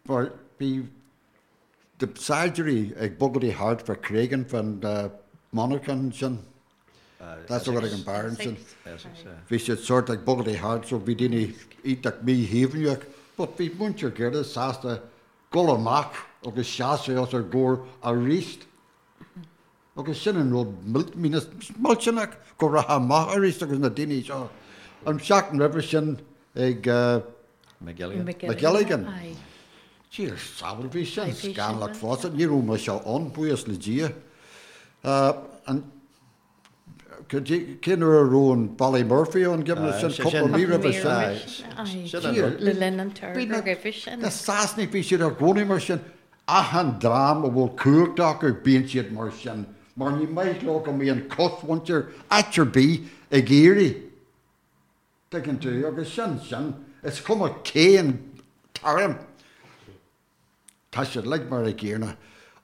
mar bhí na saighdiúirí ag bogadh thart fá Cregan fán monarchan ansin. That's what ag an beár ansin. Bhí siad sort ag bogadh thart so bhí daoine iontach míshuaimhneach but bhí muintir Dhoire sásta dul amach agus seasamh os ár gcomhair aríst. Agus sin an rud millteanach go rachfá amach arís agus na daoine seo an seachtain roimhe sin ag McGilligan. Dia sábháil, bhí sin scannalach fosta. Ní raibh mise ann, buíochas le Dia. An cén uair a raibh an Ballymurphy ann, sin cúpla mí roimhe sin. Le linn an togra roimhe sin. Na Sasanaigh, bhí siad i gcónaí mar sin. Achan dream a bhfuil cumhacht acu bíonn siad mar sin, mar ní maith leo go mbíonn cosmhuintir áit ar bith ag éirí, tuigeann tú, agus sin sin, is cuma cén t-arm, tá siad uilig mar a gcéanna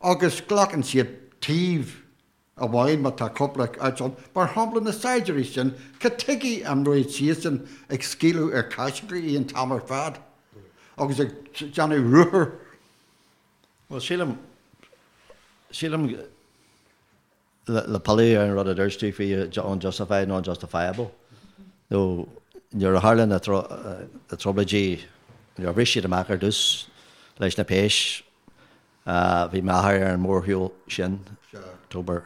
agus glacann siad taobh amháin má tá cúpla áit ann, mar shampla na saighdiúirí sin, cad tuige an raibh siadsan ag scaoileadh ar Caitlicigh an t-am ar fad agus ag déanamh ruathair? Bhuel, sílim, sílim le pilleadh ar an rud a dúirt tú faoi unjustified nó unjustifiable, nó nuair a tharla na trioblóidí, nuair a bhris siad amach ar dtús leis na péis, Bhí m'athair ar an mórshiúl sin, October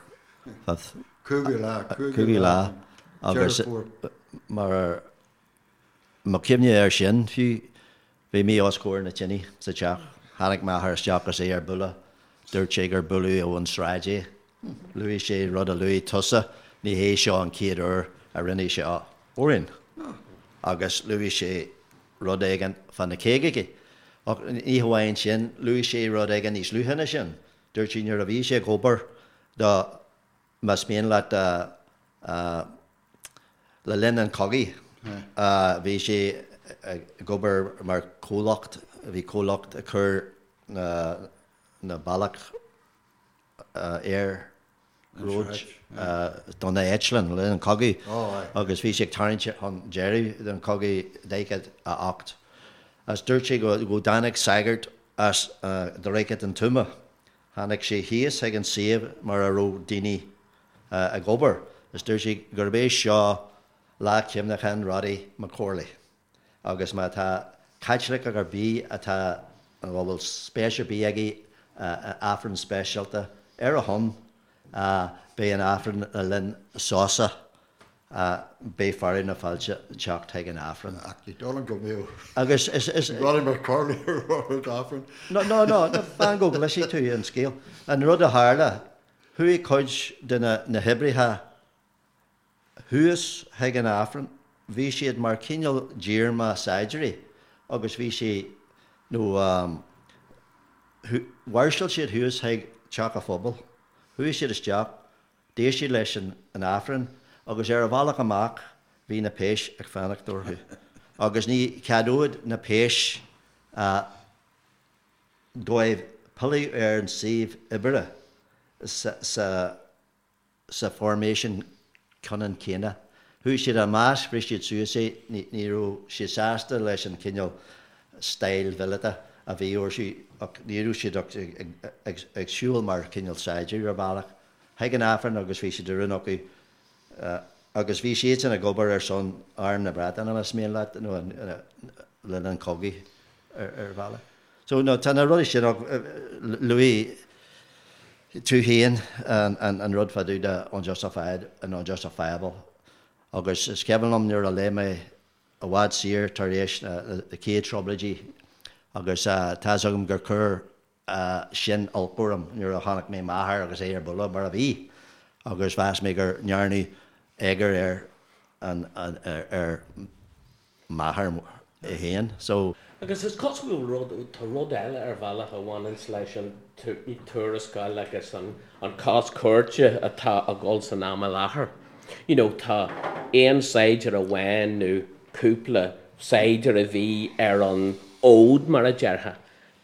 5th. Cúigiú lá, cúigiú lá, agus mar mo chuimhne air sin fiú, bhí mé os comhair na tine sa teach. Tháinig m'athair isteach agus é ar buile. Dúirt sé gur buaileadh ón sráid é. Luaigh sé rud a luaigh tusa, ní hé seo an chéad uair a rinne sé seo orainn. Agus luaigh sé rud éigin fá na caogaidí. Ach ní hamháin sin, luaigh sé rud éigin níos luaithe ná sin. Dúirt sé nuair a bhí sé ag obair do, más mian leat, le linn an chogaidh, bhí sé ag obair mar chomhlacht, bhí comhlacht ag cur na bealach iarnróid do na eitleáin le linn an chogaidh agus bhí sé ag tarraingt chun deireadh den chogaidh 48. Agus dúirt sé go dtáinig sagart as Droichead an Tuama. Tháinig sé thíos chuig an suíomh mar a raibh daoine ag obair agus dúirt sé gurb é seo lá cuimhneacháin Roddy McCorley. Agus má tá Caitliceach ar bith atá, nó a bhfuil spéis ar bith aige i Aifreann speisialta ar a shon, beidh an Aifreann le linn sosa, beidh fearadh na fáilte teacht chuig an Aifreann. Ach ní dóigh liom go mbeadh Agus is. Roddy McCorley ar an Aifreann. No, no, no, fan go gcloisfidh tú an scéal. An rud a tharla, chuaigh cuid de na hoibrithe Thuas chuig an Aifreann, bhí siad mar cineál díorma saighdiúirí agus bhí sé, nó mháirseáil siad thuas chuig Teach a' Phobail. Chuaigh siad isteach, d'éist siad leis an Aifreann agus ar a bhealach amach bhí na péis ag fanacht orthu agus ní cheadódh na péis dóibh pilleadh ar an suíomh oibre sa sa formation ceannann céanna. Chuaigh siad ina measc, bhris siad suas é, ní raibh siad sásta leis an chineál style mhíleata a bhí orthu ach ní raibh siad ach ag siúl mar chineál saighdiúir ar bhealach chuig an Aifreann agus bhí sé de rún acu agus bhí siadsan ag obair ar son Arm na Breataine más mian leat nó le linn an chogaidh ar bhealach. So no tá na rudaí sin ach luaigh tú féin an rud fá dtaobh de unjustified and unjustifiable agus is cuimhin liom nuair a léigh mé i bhfad siar tar éis na chéad trioblóidí agus tá's agam gur chuir sin olc orm nuair a chonaic mé m'athair agus é ar buile mar a bhí agus mheas mé gur ndearnadh éagar ar an ar m'athair. é féin. So. Agus is cosúil go bhfuil rud, tá rud eile ar bhealach a bhaineanns leis an tuarascáil agus an cás cúirte atá ag dul san am i láthair. You know, tá aon saighdiúir amháin nó cúpla saighdiúir a bhí ar an fhód mar a déarfá.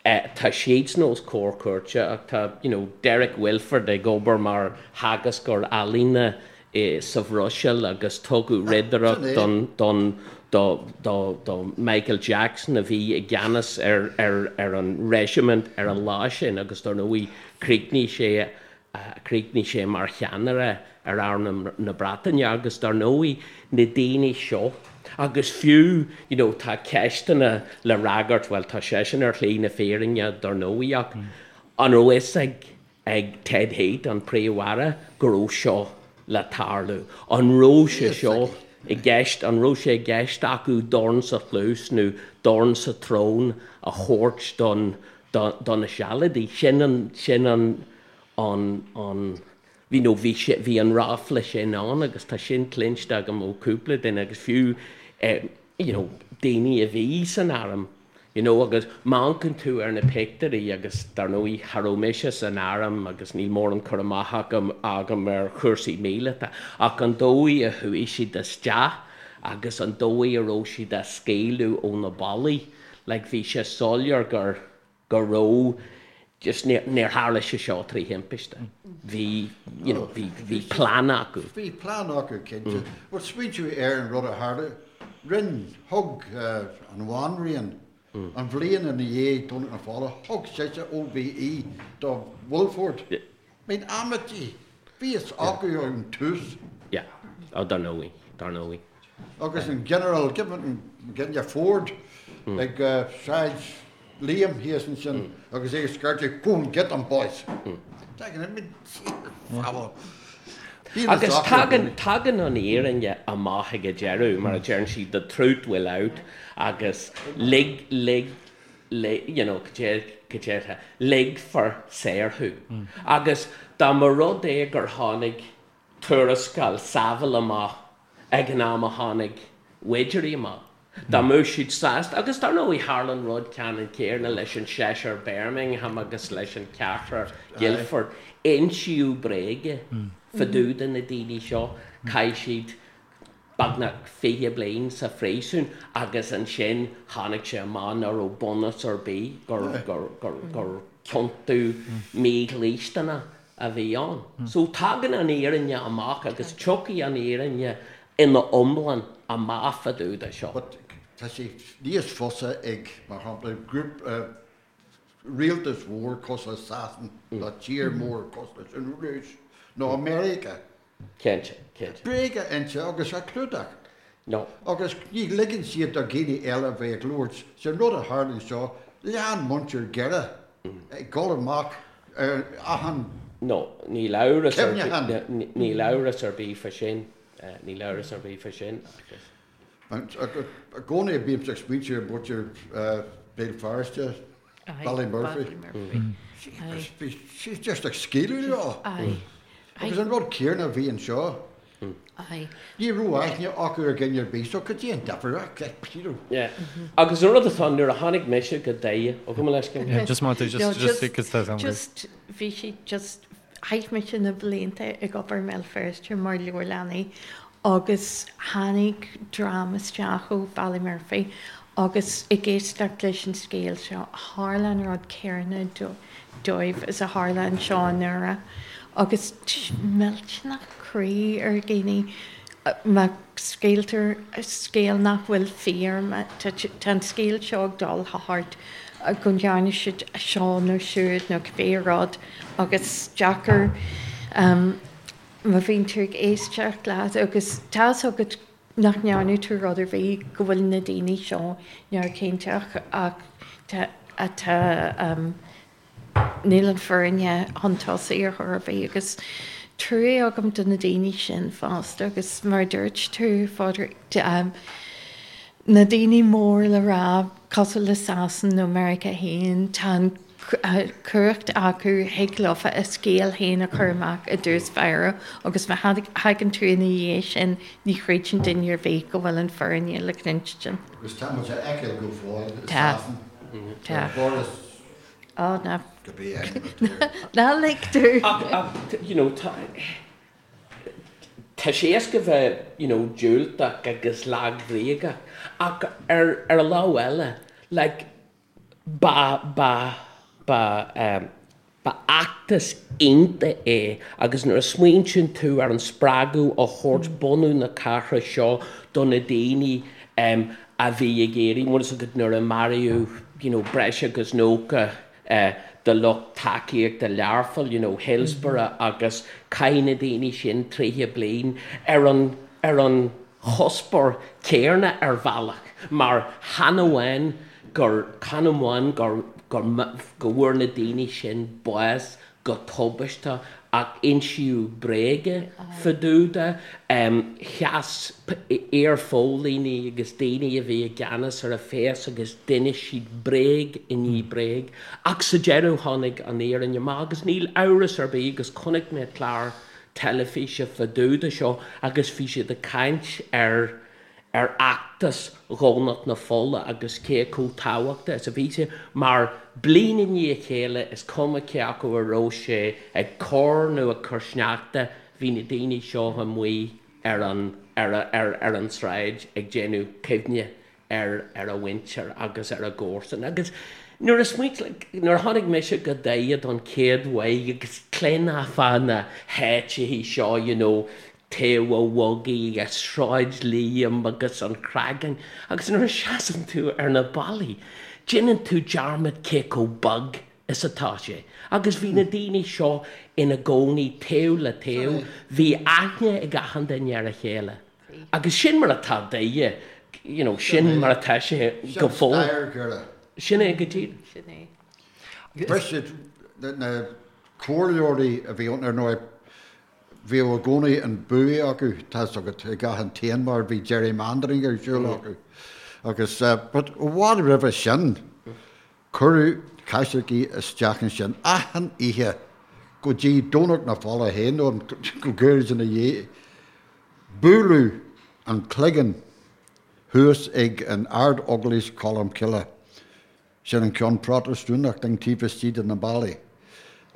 Tá siadsan os comhair cúirte ach tá you know Derek Wilford ag obair mar theagascóir ealaíne sa Bhruiséil agus tugadh ridireacht don don do do do Michael Jackson a bhí i gceannas ar ar ar an reisimint ar an lá sin agus dar ndóigh chríochnaigh sé Chríochnaigh sé mar cheannaire ar arm na Breataine agus dar ndóigh na daoine seo agus fiú you know tá ceisteanna le fhreagairt, bhuel tá seisean ar shlí na fírinne dar ndóigh ach an raibh fhios ag ag Ted Heath, an Príomh-Aire, go raibh seo le tarlú? An raibh sé seo i gceist, an raibh sé i gceist acu dorn sa chluas nó dorn sa tsrón a thabhairt don do na Sealadaigh. Sin an, sin an, an, an, you know, bhí sé, bhí an ráfla sin ann agus tá sin cluinste agam ó cúpla duine agus fiú eh, you know, daoine a bhí san arm, you know, agus má amharcann tú ar na pictiúirí agus dar ndóigh cha raibh mise san arm agus níl mórán cur amach agam, agam ar chúrsaí míleata ach an dóigh a chuaigh siad isteach agus an dóigh a raibh siad á scaoileadh ó na ballaí, Like bhí sé soiléir gur, go raibh, just níor, níor tharla sé seo trí thimpiste. Bhí, you know, bhí, bhí plean acu. Bhí plean acu, cinnte. But smaointiú ar an rud a tharla, rinn, thug an bhanríon, an bhliain ina dhiaidh Domhnach na Fola, thug sise OBE do Wilford. I mean, amaidí, bhí fhios acu ón tús. Yeah. Oh, dar ndóigh, dar ndóigh. Agus an Ginearál Ginearál Ford ag Sráid Liam thíos ansin agus é ag scairteadh Go and get them boys! Agus tagann, tagann an fhírinne amach ag an deireadh, mar a deireann siad, the truth will out agus lig, lig, lig, you know, cad é, ligfear saor thú. Agus dá mba rud é gur tháinig tuarascáil Saville amach ag an am a tháinig Widgery amach. Dá mbeadh siad sásta, agus dar ndóigh tharla an rud ceannann céanna leis an seisear Birmingham agus leis an ceathrar Guildford, insíodh bréaga fá dtaobh de na daoine seo, chaith siad beagnach 20 bliain sa phríosún agus ansin tháinig sé amach nach raibh bunús ar bith gur, gur, gur, gur ciontú mídhlisteanach a bhí ann. So tagann an fhírinne amach agus tiocfaidh an fhírinne ina iomlán amach fá dtaobh de seo. But tá sé níos fusa ag, mar shampla, grúpa, rialtas mhór cosúil le Sasain nó tír mór cosúil leis an Rúis nó Meiriceá. Cinnte, cinnte. Bréag a inse agus a chlúdach. No. Agus ní ligeann siad do dhaoine eile a bheith ag labhairt. Sin rud a tharla anseo, lean muintir Dhoire ag dul amach ar achan No, níl amhras ar bith, níl amhras ar bith fá sin, níl amhras ar bith fá sin agus. I gcónaí bímse ag smaointiú ar mhuintir Béal Feirste, Ballymurphy. Bhí siad just ag scaoileadh leo. Agus an rud céanna a bhí anseo. Ní raibh aithne acu ar dhuine ar bith, so cad é an difear? Yeah. Agus an rud atá, nuair a tháinig mise go Doire, ó gabh mo leithscéal. Yeah, just want to, just, just, because that's Just, bhí siad just, chaith mise na blianta ag obair i mBéal Feirste mar leabharlannaí agus tháinig dream isteach ó Ballymurphy agus ag éisteacht leis an scéal seo, tharla an rud céanna dóibh is a tharla anseo i nDoire agus millteanach croí ar dhaoine má scaoiltear scéal nach bhfuil fíor, tá an scéal seo ag dul thart go ndearna siad seo nó siúd nó cibé rud agus deacair má bhíonn tú ag éisteacht leat agus tá's agat nach ndearna tú rud ar bith go bhfuil na daoine seo neamhchiontach ach tá tá níl an fhírinne chun tosaigh ar chor ar bith agus trua agam do na daoine sin fosta agus mar a dúirt tú Phádraig na daoine mór le rá cosúil le Sasain nó Meiriceá féin tá an. Cumhacht acu thig leofa a scéal féin a chur amach i dtús báire agus má thagann tú ina dhiaidh sin ní chreideann duine ar bith go bhfuil an fírinne le cluinstin. Agus tá muid á fheiceáil go fóill i Sasana. Tá. Boris Ó ná. Cibé ainm atá air. Ná lig domh. Ach, you know, tá. Tá sé éasca bheith, you know, diúltach agus lagbhríoch ach ar ar an lámh eile, like, Ba, ba, ba, eh, ba fheachtas iontach é agus nuair a smaointíonn tú ar an spreagadh a thabhairt bunú na cathrach seo do na daoine em a bhí ag iarraidh, bhfuil fhios agat nuair a maraíodh you know breis agus 90 eh de lucht tacaíochta Learpholl, you know Hillsborough agus chaith na daoine sin 30 bliain ar an, ar an chuspóir céarna ar bhealach mar chan amháin gur, chan amháin gur, gur, go bhfuair na daoine sin bás go tubaisteach ach insíodh bréaga fá dtaobh de. Sheas iar-phóilíní agus daoine a bhí i gceannas ar an phéas agus d'inis siad bréag i ndiaidh bréag ach sa deireadh tháinig an fhírinne amach agus níl amhras ar bith agus chonaic mé clár teilifíse fá dtaobh de seo agus bhí siad ag caint ar ar fheachtas Dhomhnach na Fola agus cé chomh tábhachtach is a bhí sé mar bliain i ndiaidh a chéile is cuma cé acu a raibh sé ag cur nó ag cur sneachta bhí na daoine seo amuigh ar an ar ar ar an tsráid ag déanamh cuimhne ar ar a mhuintir agus ar a gcomharsain. Agus nuair a smaoint, like, nuair a tháinig mise go Doire don chéad uair agus chluinfeá fá na háiteachaí seo, you know, Taobh a' Bhogaigh agus Sráid Liam agus an Chreagáin, agus nuair a seasann tú ar na ballaí, déanann tú dearmad cé chomh beag is atá sé. Agus bhí na daoine seo ina gcónaí taobh le taobh, bhí aithne ag achan duine ar a chéile. Agus sin mar atá Doire, you know, sin mar atá sé go fóill. Sin stair Dhoire. Sin é go díreach. Sin é. Bhris siad na comhairleoirí a bhí ann, ar ndóigh, bhíodh i gcónaí an bua acu, tá's agat, ag achan t-aon mar bhí gerrymandering ar siúl acu. Agus, but i bhfad roimhe sin, cuireadh Caitlicigh isteach ansin achan oíche go dtí Domhnach na Fola féin, nó go gairid ina dhiaidh. Buaileadh an cloigeann thuas ag an Ard-Eaglais Cholmcille, sin an ceann Protastúnach den taobh istigh de na ballaí,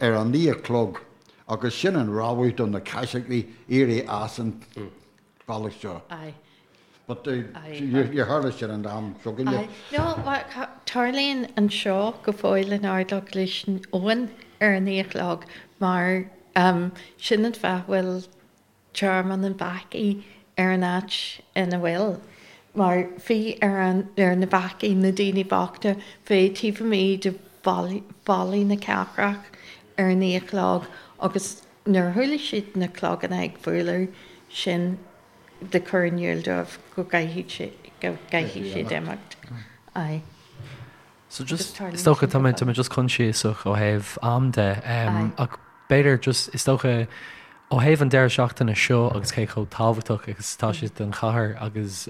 ar a naoi a chlog agus sin an rabhadh do na Caitlicigh éirí as an bhealach seo. But níor tharla sin an am seo againne. No, tarlaíonn anseo go fóill in Ard-Eaglais Eoin ar a naoi a chlog mar sin an fáth a bhfuil Tearmann an Bhacaigh ar an áit ina bhfuil, mar bhí ar an, ar na bacaigh, na daoine bochta, bheith taobh amuigh de bhallaí na cathrach ar a naoi a chlog agus nuair a chuala siad na cloganna ag bualadh, sin le cur in iúl dóibh go gcaithfidh, go gcaithfidh siad imeacht. Aye. So just, is dócha, tá mé, tá mé just coinsiasach ó thaobh am de, ach b'fhéidir just, is dócha, ó thaobh an deireadh seachtaine seo agus cé chomh tábhachtach agus atá sé don chathair agus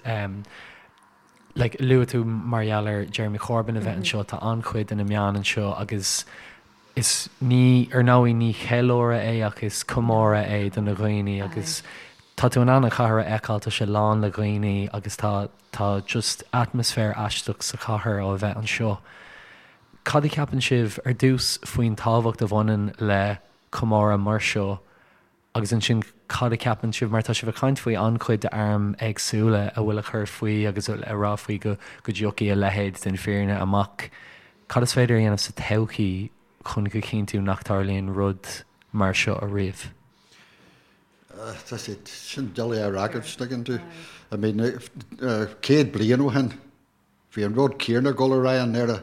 like luaigh tú mar gheall ar Jeremy Corbyn a bheith anseo, tá an-chuid de na meáin anseo agus is ní, ar ndóigh ní ceiliúradh é ach is comóradh é do na dhaoine agus tá tú in ann an chathair a fheiceáil, tá sé lán le dhaoine agus tá Tá just atmaisféar aisteach sa chathair ó a bheith anseo. Cad a cheapann sibh ar dtús faoin tábhacht a bhaineann le comóradh mar seo agus ansin cad a cheapann sibh, mar tá sibh ag caint faoi an-chuid d'airm éagsúla a bhfuil a chur faoi agus a rá faoi go go dtiocfaidh a leithéid den fhírinne amach, cad is féidir a dhéanamh sa todhchaí chun go chinntiú nach dtarlaíonn rud mar seo ariamh? Tá sé sin doiligh a fhreagairt, tuigeann tú. I mean, 100 bliain ó shin, bhí an rud céanna ag dul ar aghaidh i nDoire.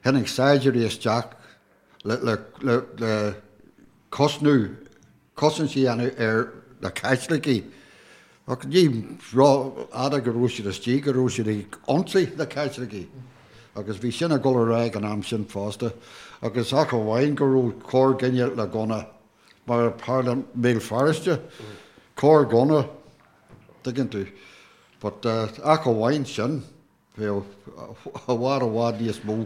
Tháinig saighdiúirí isteach le, le, le, le cosnú, cosaint a dhéanamh ar na Caitlicigh. Ach ní rófhada go raibh siad istigh, go raibh siad ag ionsaí na Caitlicigh. Agus bhí sin ag dul ar aghaidh an am sin fosta. Agus ach amháin go raibh corrdhuine le gunna. Mar a tharla i mBéal Feirste, corr-ghunna, tuigeann tú. But ach amháin sin, bheadh i bhfad i bhfad níos mó.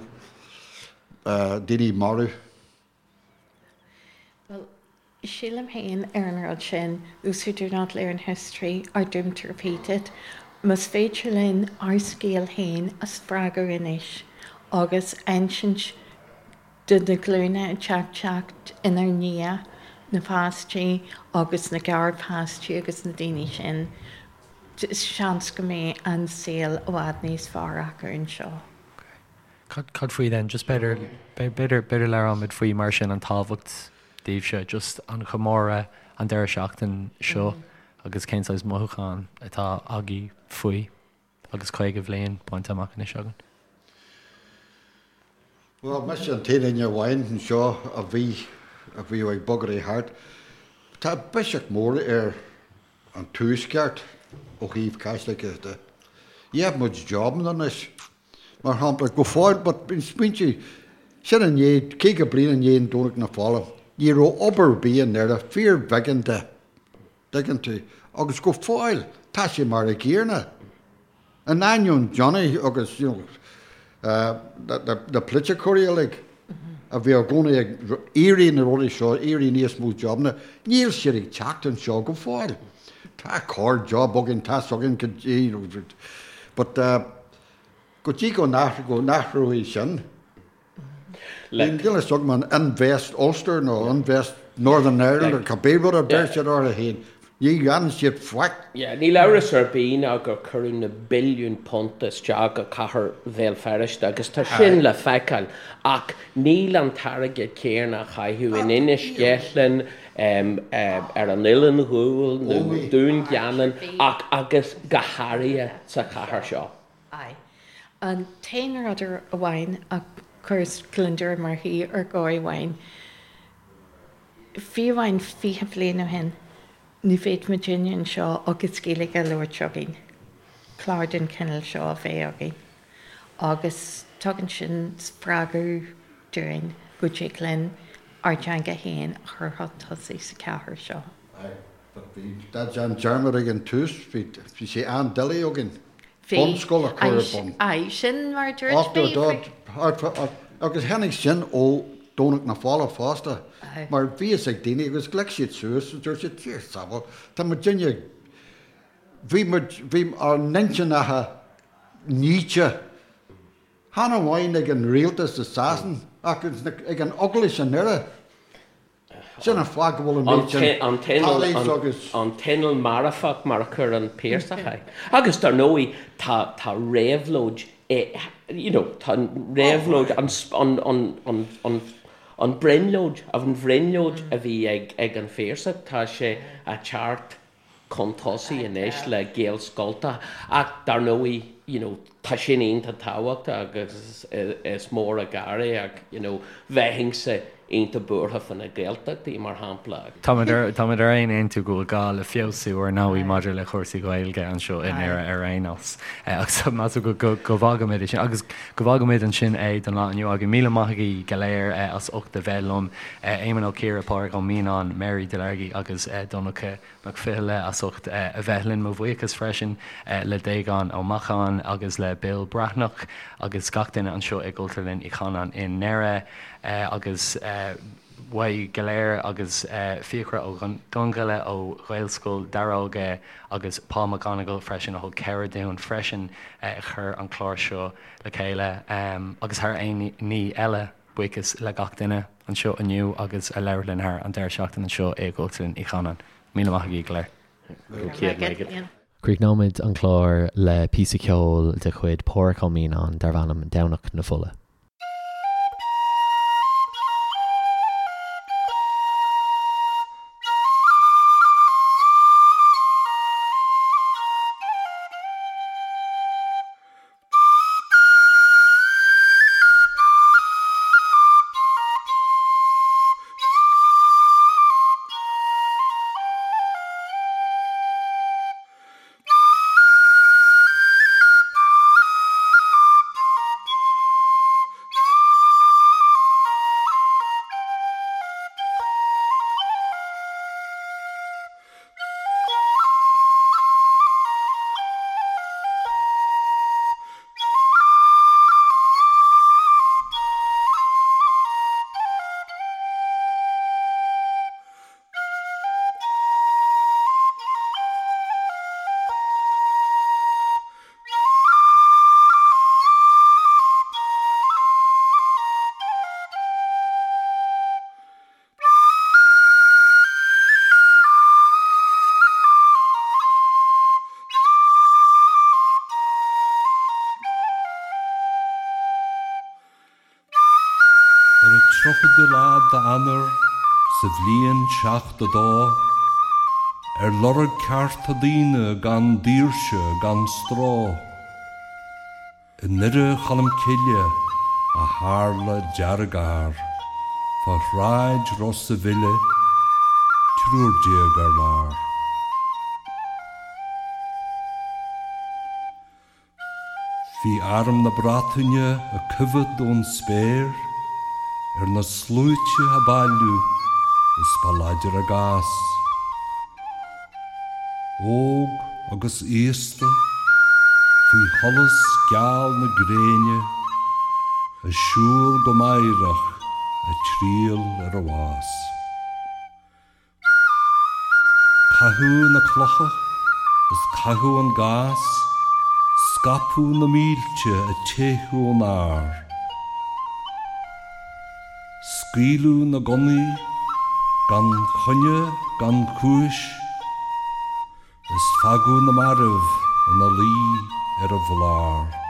daoine marbh. Bhuel, sílim féin ar an rud sin, those who do not learn history are doomed to repeat it. Más féidir linn ár scéal féin a spreagadh anois agus insint do na glúine atá ag teacht inár ndiaidh, na páistí agus na garpháistí agus na daoine sin, seans go mbeidh an saol i bhfad níos fearr acu anseo. Cad faoi then, just b'fhéidir, b'fhéidir, b'fhéidir labhróimid faoi mar sin an tábhacht daoibhse, just an chomóradh an deireadh seachtain seo agus cén saghas mothúchán atá agaibh faoi agus 50 bhliain bainte amach anois againn. Bhuel, mise an t-aon duine amháin anseo a bhí, a bhíodh ag bogadh thart. Tá biseach mór ar an tuaisceart ó thaobh Caitlicigh de. Gheibh muid jobanna anois. Mar shampla, go fóill, but smaointigh, sin i ndiaidh, 50 bliain i ndiaidh an Domhnach na Fola, ní raibh obair ar bith i nDoire, fíorbheagán de, dtuigeann tú, agus go fóill, tá sé mar a gcéanna. In ainneoin Johnny agus, you know, na polaiticeoirí uilig a bhí i gcónaí ag iarraidh na rudaí seo, iarraidh níos mó jobanna, níl siad ag teacht anseo go fóill. Tá corr job againn, tá againn, you know, but, Go dtí go n-athróidh sin, níl a fhios agam an Invest Ulster nó Invest Northern Ireland nó cibé rud a deir siad orthu féin, ní dhéanann siad faic. Níl amhras ar bith ná gur cuireadh na billiúin punt isteach go cathair Bhéal Feirste agus tá sin le feiceáil ach níl an t-airgead céanna á chaitheamh in Inis Ceithleann, ar an Oileán Ghuail nó Dún Geanainn ach agus go háirithe sa chathair seo. Aye. An t-aon rud amháin a chuireas gliondar i mo chroí ar dhóigh amháin, fiú amháin 20 bliain ó shin, ní bheadh muidinne anseo agus Gaeilge á labhairt againn, clár den chineál seo a bheith againn. Agus tugann sin spreagadh dúinn go dtig linn ár dteanga féin a chur chun tosaigh sa chathair seo. Aye, but bhí déan dearmad ag an tús, bhí, bhí sé an-doiligh againn bunscoil a chur ar bun. Aye, sin mar a dúirt mé faoi. Agus tháinig sin ó Domhnach na Fola fosta, mar bhí fhios ag daoine agus ghlac siad suas agus dúirt siad, Dia sábháil, tá muidinne ag, bhí muid, bhí ár n-intinneacha nite. Chan amháin ag an rialtas i Sasain ach ag an Eaglais i nDoire. Sin an fáth go bhfuil an méid sin tallies agus. An t-inneall marfach mar a chuir an Piarsach é. Agus dar ndóigh tá tá réabhlóid you know tá an réabhlóid an an an an brionglóid an bhrionglóid a bhí ag ag an Phiarsach tá sé a teacht chun tosaigh anois le Gaelscoltacha ach dar ndóigh you know tá sin iontach tábhachtach agus is mór an gar é ach you know bheinnse iontach buartha fá na Gaeltachtaí mar shampla. Táimid ar táimid ar aon aontú go bhfuil gá le feabhsú ar ndóigh maidir le cúrsaí Gaeilge anseo i nDoire ar aon nós. Agus measaim go go go bhfágfaimid é sin agus go bhfágfaimid ansin é don lá inniu againn. Míle maith agaibh go léir as ucht a bheith liom. Éamonn Ó Ciardha, Pádraig Ó Mianáin, Mary Delargy agus Donncha Mac Fhionnghaile as ucht a bheith linn. Mo bhuíochas freisin le Déagán Ó Macháin agus le Bill Breathnach agus gach duine anseo i gCultúrlann Uí Chanáin i nDoire agus uaibh go léir agus Fiachra Ó Donnghaile ó Ghaelscoil Daróga agus Paul McGonigal freisin a thug cabhair dúinn freisin a chur an clár seo le chéile agus thar aon ní eile. Buíochas le gach duine anseo inniu agus a labhair linn thar an deireadh seachtaine anseo i gCultúrlann Uí Chanáin. Míle maith agaibh go léir. Go raibh maith agat. Críochnóimid an clár le píosa ceoil de chuid Pádhraic Ó Mianáin darb ainm Domhnach na Fola. Ar an tríochadú lá d'Eanáir sa bhliain 72, ar lorg cearta daoine gan daoirse gan stró, i nDoire Cholm Cille a tharla dearg-ár fá shráid Ros a' Mhíle, 13 ar lár. Bhí arm na Breataine ag coimhead ón spéir ar na sluaite a bailiú is ba láidir a gcás. Óg agus aosta, faoi sholas geal na gréine, ag siúl go meidhreach ag triall ar an bhás. Caitheadh na clocha is caitheadh an gás, scaipeadh na mílte ag teitheadh ón ár. Scaoileadh na gunnaí gan choinne gan chúis is fágadh na mairbh ina luí ar an bhlár.